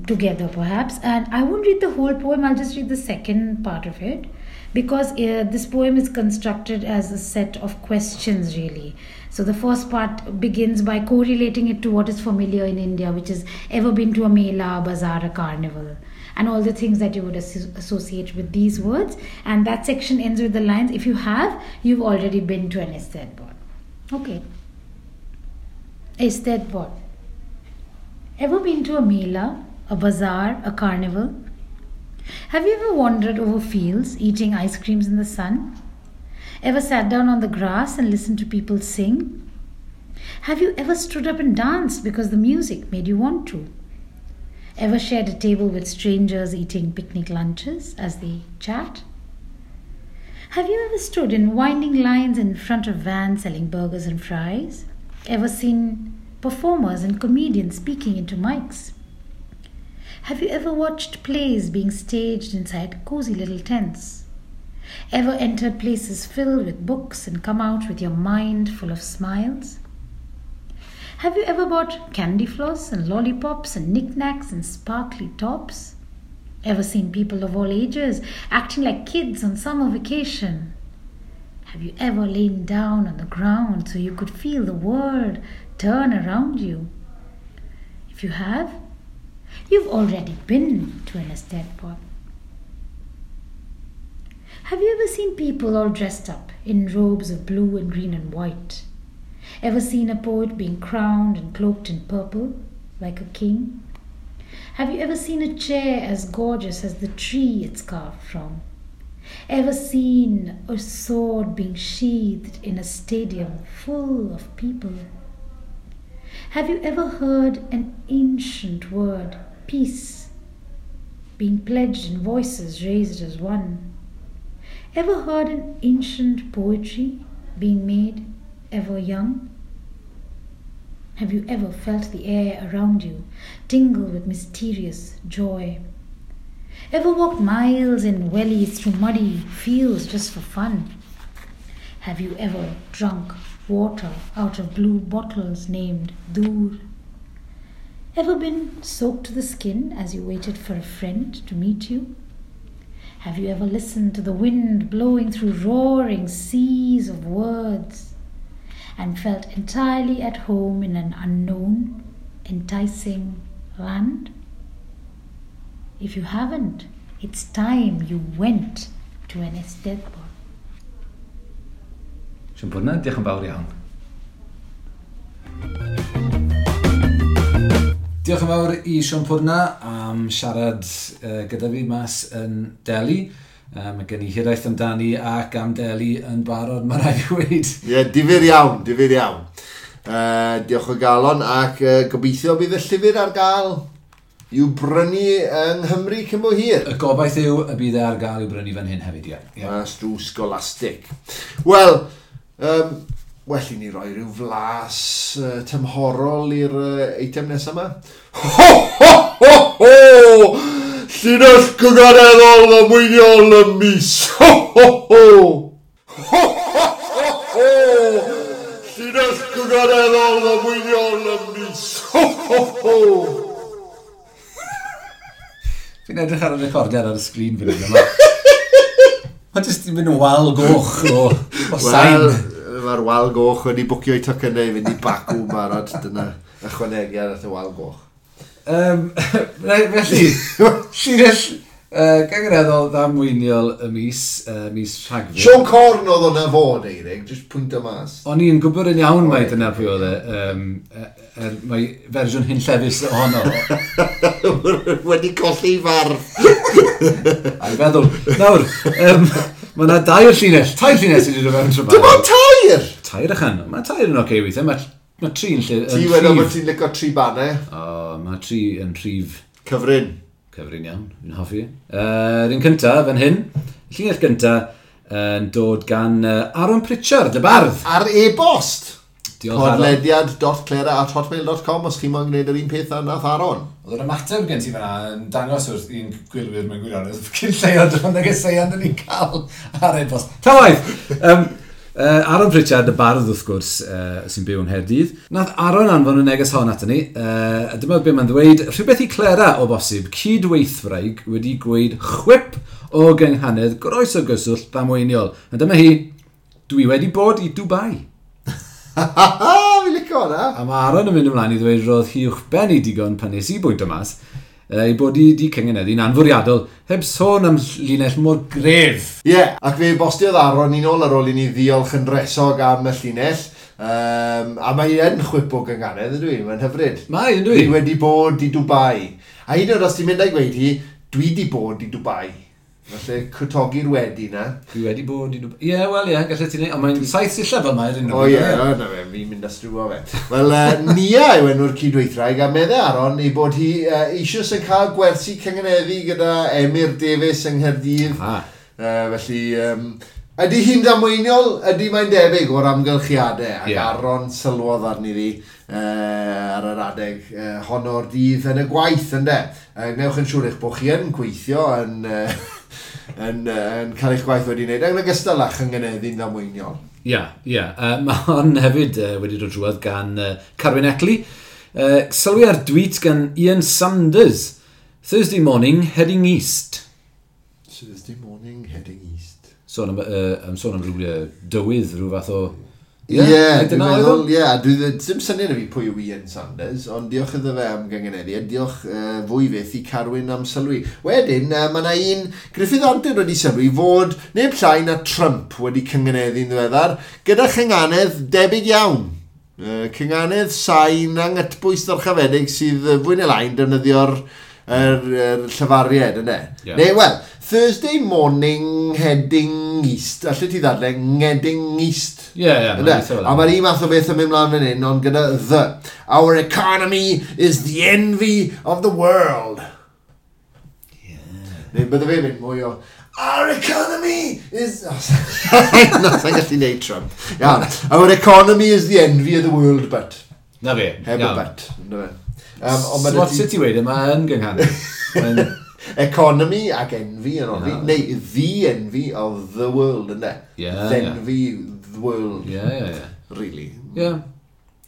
together perhaps. And I won't read the whole poem, I'll just read the second part of it, because this poem is constructed as a set of questions, really. So the first part begins by correlating it to what is familiar in India, which is ever been to a mela, a bazaar, a carnival, and all the things that you would associate with these words. And that section ends with the lines, if you have, you've already been to an Eisteddfod. Okay. Eisteddfod. Ever been to a mela, a bazaar, a carnival? Have you ever wandered over fields, eating ice creams in the sun? Ever sat down on the grass and listened to people sing? Have you ever stood up and danced because the music made you want to? Ever shared a table with strangers eating picnic lunches as they chat? Have you ever stood in winding lines in front of vans selling burgers and fries? Ever seen performers and comedians speaking into mics? Have you ever watched plays being staged inside cozy little tents? Ever entered places filled with books and come out with your mind full of smiles? Have you ever bought candy floss and lollipops and knickknacks and sparkly tops? Ever seen people of all ages acting like kids on summer vacation? Have you ever lain down on the ground so you could feel the world turn around you? If you have, you've already been to an Eisteddfod. Have you ever seen people all dressed up in robes of blue and green and white? Ever seen a poet being crowned and cloaked in purple like a king? Have you ever seen a chair as gorgeous as the tree it's carved from? Ever seen a sword being sheathed in a stadium full of people? Have you ever heard an ancient word, peace, being pledged in voices raised as one? Ever heard an ancient poetry being made ever young? Have you ever felt the air around you tingle with mysterious joy? Ever walked miles in wellies through muddy fields just for fun? Have you ever drunk water out of blue bottles named Dur? Ever been soaked to the skin as you waited for a friend to meet you? Have you ever listened to the wind blowing through roaring seas of words and felt entirely at home in an unknown, enticing land? If you haven't, it's time you went to an Eisteddfod. Sian diolch yn fawr iawn. Diolch yn fawr i Sian Pwrna am siarad gyda fi mas yn Delhi. Mae gen i hiraeth amdani ac am Delhi yn barod, mae rhaid i weud. Ie, yeah, difyr iawn, difyr iawn. Diolch o galon ac gobeithio bydd y llyfr ar gael i'w brynu yng Nghymru cyn bo hir. Y gobaith yw y bydd e ar gael i'w brynu fan hyn hefyd, ie. Yeah. Mas drwy Scholastic. Wel, well i ni roi rhyw flas tymhorol i'r eitem nesaf yma. Ho, ho, ho, ho! Llinell gygareddol ddamweiniol y mis. Ho, ho, ho! Ho, ho, ho, ho! Llinell gygareddol ddamweiniol y mis. Ho, ho, ho! Fi'n edrych ar y recordiad ar y sgrin fan hyn yma. Mae jyst yn mynd yn wal goch o sain. Wel, mae'r wal goch wedi bwcio i tocynnau i fynd i Baku barod. Dyna ychwanegiad at y wal goch. Felly, llinell gyngareddol ddamweiniol y mis, mis Rhagfyr. Siôn Corn oedd hwnna fod, Eirig, jyst pwynt o mas. O'n i'n gwybod yn iawn mai dyna pwy oedd e. Mae fersiwn hunllefus ohono. Wedi colli farf. A'i feddwl. Nawr, mae yna dair llinell, tair llinell sydd wedi dod fewn tro. Dim ond tair! Tair ychan. Mae tair yn oce weithiau. Mae tri yn lle... Ti wedi bod ti'n licio tri bannau? O, mae tri yn rhif... Cyfrin. Cyfrin iawn, fi'n hoffi. Yr un cyntaf, fan hyn, llinell gyntaf, yn dod gan Aaron Pritchard, y bardd. Ar e-bost. Diolch, Aaron. Podlediad.clera@hotmail.com os chi moyn gwneud yr un peth â nath Aaron. Oedd yr ymateb gen ti fan'na yn dangos wrth un gwylwyr mewn gwirionedd cyn lleiod o'n negeseuon dyn ni'n cael ar e-bost. Ta waith! Aaron Pritchard, y bardd wrth gwrs, sy'n byw yng Nghaerdydd. Nath Aaron anfon y neges hon ato ni, a dyma be mae'n ddweud, rhywbeth i Clera o bosib, cydweithwraig wedi gweud chwip o gynghanedd groes o gyswllt ddamweiniol. A dyma hi, dwi wedi bod i Dubai. Fi'n licio hwnna. A mae Aaron yn mynd ymlaen i ddweud roedd hi uwchben i digon pan nes i bwynt o mas, ei bod i di cyngeneddu'n anfwriadol, heb sôn am linell mor gref. Ie, yeah, ac fe bostiodd Aaron ni'n ôl ar ôl i ni ddiolch yn resog am y llinell. A mae yn chwip o gynganedd, ydw i, mae'n hyfryd. Mae, ydw i. Dwi wedi bod i Dubai. A hyd yn oed os ti'n mynd a'i gweud hi, dwi di bod i Dubai. Felly, cwtogi'r wedi na. Dwi wedi bod i Dubai. Ie, yeah, wel ie, yeah, gallet ti wneud. Ond mae'n 7 sillaf fel mae'r unrhyw. O ie, na fe, fi'n mynd â strwo fe. Wel, Nia yw enw'r cydweithraig, a meddai Aaron ei bod hi eisoes yn cael gwersi cyngeneddu gyda Emyr Davies yng Nghaerdydd. Felly, ydy hi'n damweiniol? Ydy mae'n debyg o'r amgylchiadau, ac yeah. Aaron sylwodd arni ddi ar yr adeg hon o'r dydd yn y gwaith, ynde. Gwnewch yn siŵr eich bod chi yn gweithio yn, yn cael eich gwaith wedi wneud, yn ogystal â chyngeneddu'n ddamweiniol. Ie, ie. Mae hon hefyd wedi dod drwodd gan Carwyn Eckley. Sylwi ar tweet gan Ian Sanders. Thursday morning, heading east. Thursday morning, heading east. Sôn am rhyw dywydd, rhyw fath o... Ie, dwi'n meddwl, ie, dwi ddim syniad i fi pwy yw Ian Sanders, ond diolch iddo fe am gyngeneddu, a diolch fwy fyth i Carwyn am sylwi. Wedyn, mae yna un Gruffydd Antur wedi sylwi fod neb llai na Trump wedi cyngeneddu'n ddiweddar, gyda chynganedd debyg iawn. Cynganedd sain angytbwys ddyrchafedig sydd fwy neu lai'n defnyddio'r llyfariad, yna. Yeah. Neu, wel, Thursday morning heading east. Allet ti ddadle, heading east. Ie, ie. A mae'r un math o beth yn mynd mlaen fan hyn, ond gyda the. Our economy is the envy of the world. Yeah. Neu bydde fe mynd mwy o, our economy is... Na, sa'n gallu neud Trump. Iawn. Our economy is the envy of the world, but. Na fe. Heb y but. Na fe. So sut ti wedi, mae yn gynghanedd. Economy ac envy yn oddi. Neu the envy of the world, ynddo? Yeah, the envy the world. Yeah, yeah, yeah. Really. Yeah.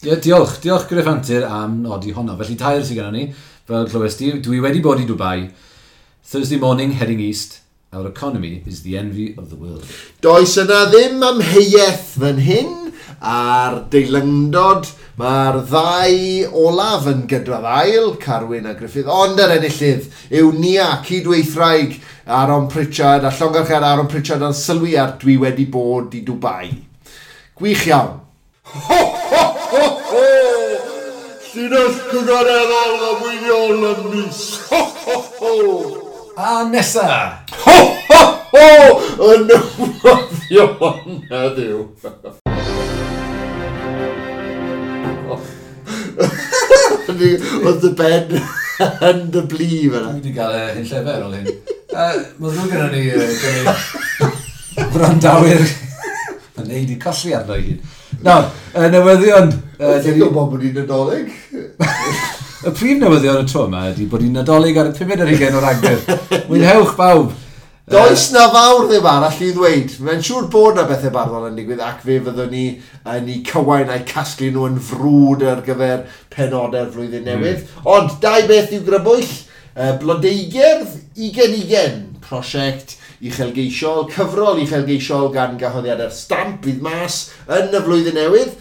Yeah, diolch. Diolch Gruff Antur am nodi honno. Felly tair sydd gennym ni, fel clywes di, dwi wedi bod i Dubai. Thursday morning, heading east. Our economy is the envy of the world. Does yna ddim amheuaeth fan hyn a'r deilyngdod. Mae'r ddau olaf yn gydraddail, Carwyn a Gruffydd, ond yr enillydd yw Nia, cydweithraig Aaron Pritchard, a llongarchad Aaron Pritchard yn sylwi ar dwi wedi bod i Dubai. Gwych iawn. Ho, ho, ho, ho! Llinell cynghoreddol ddamweiniol y mis. Ho, ho, ho! A nesa! Ho, ho, ho! Y newyddion heddiw. Oedd dy ben yn dy blu fyna. Dwi wedi cael hyn llefer ôl hyn. Mae ddrwg gyda ni wrandawyr. Mae'n neud i colli arno i gyd. Nawr, newyddion. Ti'n gwybod bod hi'n Nadolig? Y prif newyddion y tro yma ydy bod hi'n Nadolig ar y 5 ar 20 o Ragfyr. Mwynhewch bawb! Does na fawr ddim arall i ddweud. Mae'n siŵr bod na bethau barddol yn digwydd ac fe fyddwn ni yn eu cywain a'i casglu nhw yn frwd ar gyfer penodau'r flwyddyn newydd. Ond dau beth i'w grybwyll. Blodeugerdd 2020, prosiect uchelgeisiol, cyfrol uchelgeisiol gan gyhoeddiadau'r Stamp fydd mas yn y flwyddyn newydd.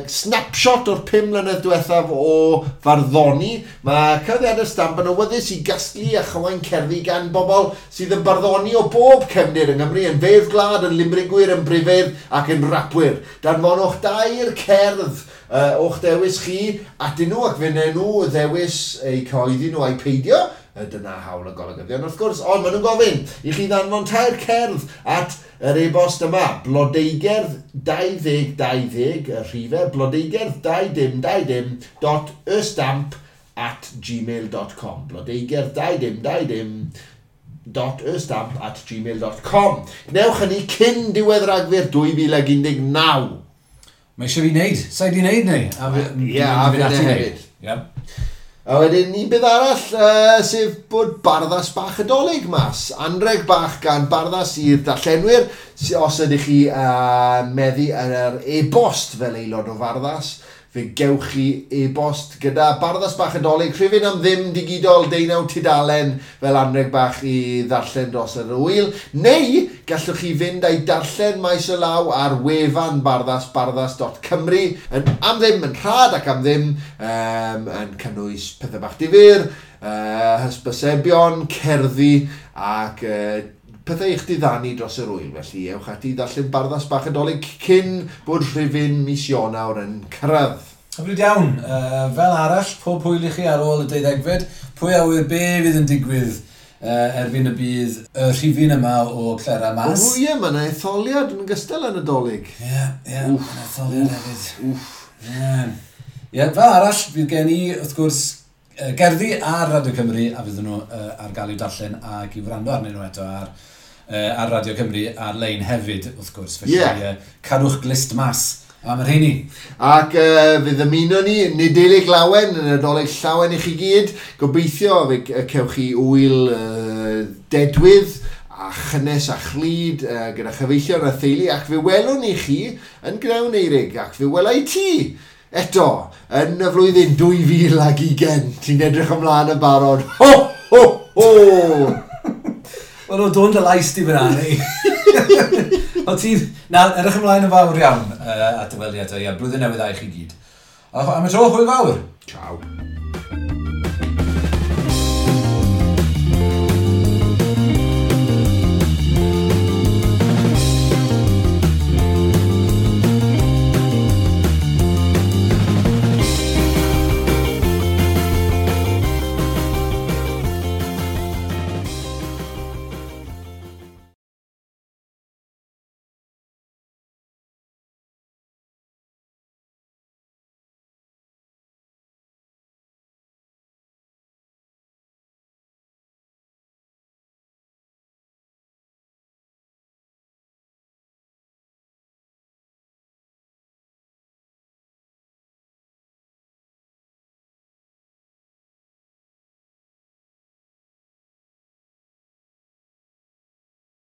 Snapshot o'r 5 mlynedd diwethaf o farddoni. Mae cyhoeddiadau'r Stamp yn awyddus i gasglu a chywain cerddi gan bobl sydd yn barddoni o bob cefndir yng Nghymru, yn feirdd gwlad, yn limrigwyr, yn brifeirdd ac yn rapwyr. Danfonwch dair cerdd o'ch dewis chi atyn nhw ac fe wnawn nhw ddewis eu cyhoeddi nhw a'i peidio. Dyna hawl y golygyddion wrth gwrs, ond maen nhw'n gofyn i chi ddanfon tair cerdd at yr e-bost yma, blodeugerdd 2020, y rhifau, blodeugerdd 2020 dot ystamp at gmail.com, blodeugerdd 2020 dot ystamp at gmail.com. Gwnewch hynny cyn diwedd Rhagfyr 2019. Mae eisiau fi wneud, sa'i di wneud neu? Ie, a fi hefyd. Ie. A wedyn un beth arall, sef bod Barddas bach y Dolig mas. Anreg bach gan Barddas i'r darllenwyr, os ydych chi meddu ar yr e-bost fel aelod o Farddas, fe gewch chi e-bost gyda Barddas bach y Dolig, rhifyn am ddim digidol 19 tudalen fel anreg bach i ddarllen dros yr wyl, neu gallwch chi fynd a'i darllen maes o law ar wefan Barddas, barddas.cymru, yn am ddim, yn rhad ac am ddim, yn cynnwys pethau bach difyr, hysbysebion, cerddi ac pethau i'ch diddanu dros yr wyl. Felly ewch ati i ddarllen Barddas bach y Dolig cyn bod rhifyn mis Ionawr yn cyrraedd. Hyfryd iawn. Fel arall, pob hwyl i chi ar ôl y 12fed. Pwy a ŵyr be fydd yn digwydd erbyn y bydd y rhifyn yma o Clera mas. O ie, mae yna etholiad yn gystal yn y Dolig. Ie, ie, mae etholiad hefyd. Wff. Ie. Ie, fel arall, fydd gen i, wrth gwrs, gerddi ar Radio Cymru, a fydden nhw ar gael i'w darllen ac i wrando arnyn nhw eto ar Radio Cymru ar-lein hefyd, wrth gwrs. Felly, cadwch glust mas am y rheini. Ac fe ddymuno ni Nadolig lawen, yn Nadolig llawen i chi gyd. Gobeithio fe cewch chi wyl dedwydd a chynnes a chlyd gyda chyfeillion a theulu, ac fe welwn ni chi yn Gnewn Eurig, ac fe wela i ti eto yn y flwyddyn 2020. Ti'n edrych ymlaen yn barod. Ho, ho, ho! Wel, o dôn dy lais di fyna, ni. O ti'n... Na, edrych ymlaen yn fawr iawn at y weliad. Ie, blwyddyn newydd dda i chi gyd. A am y tro, hwyl fawr. Ciao.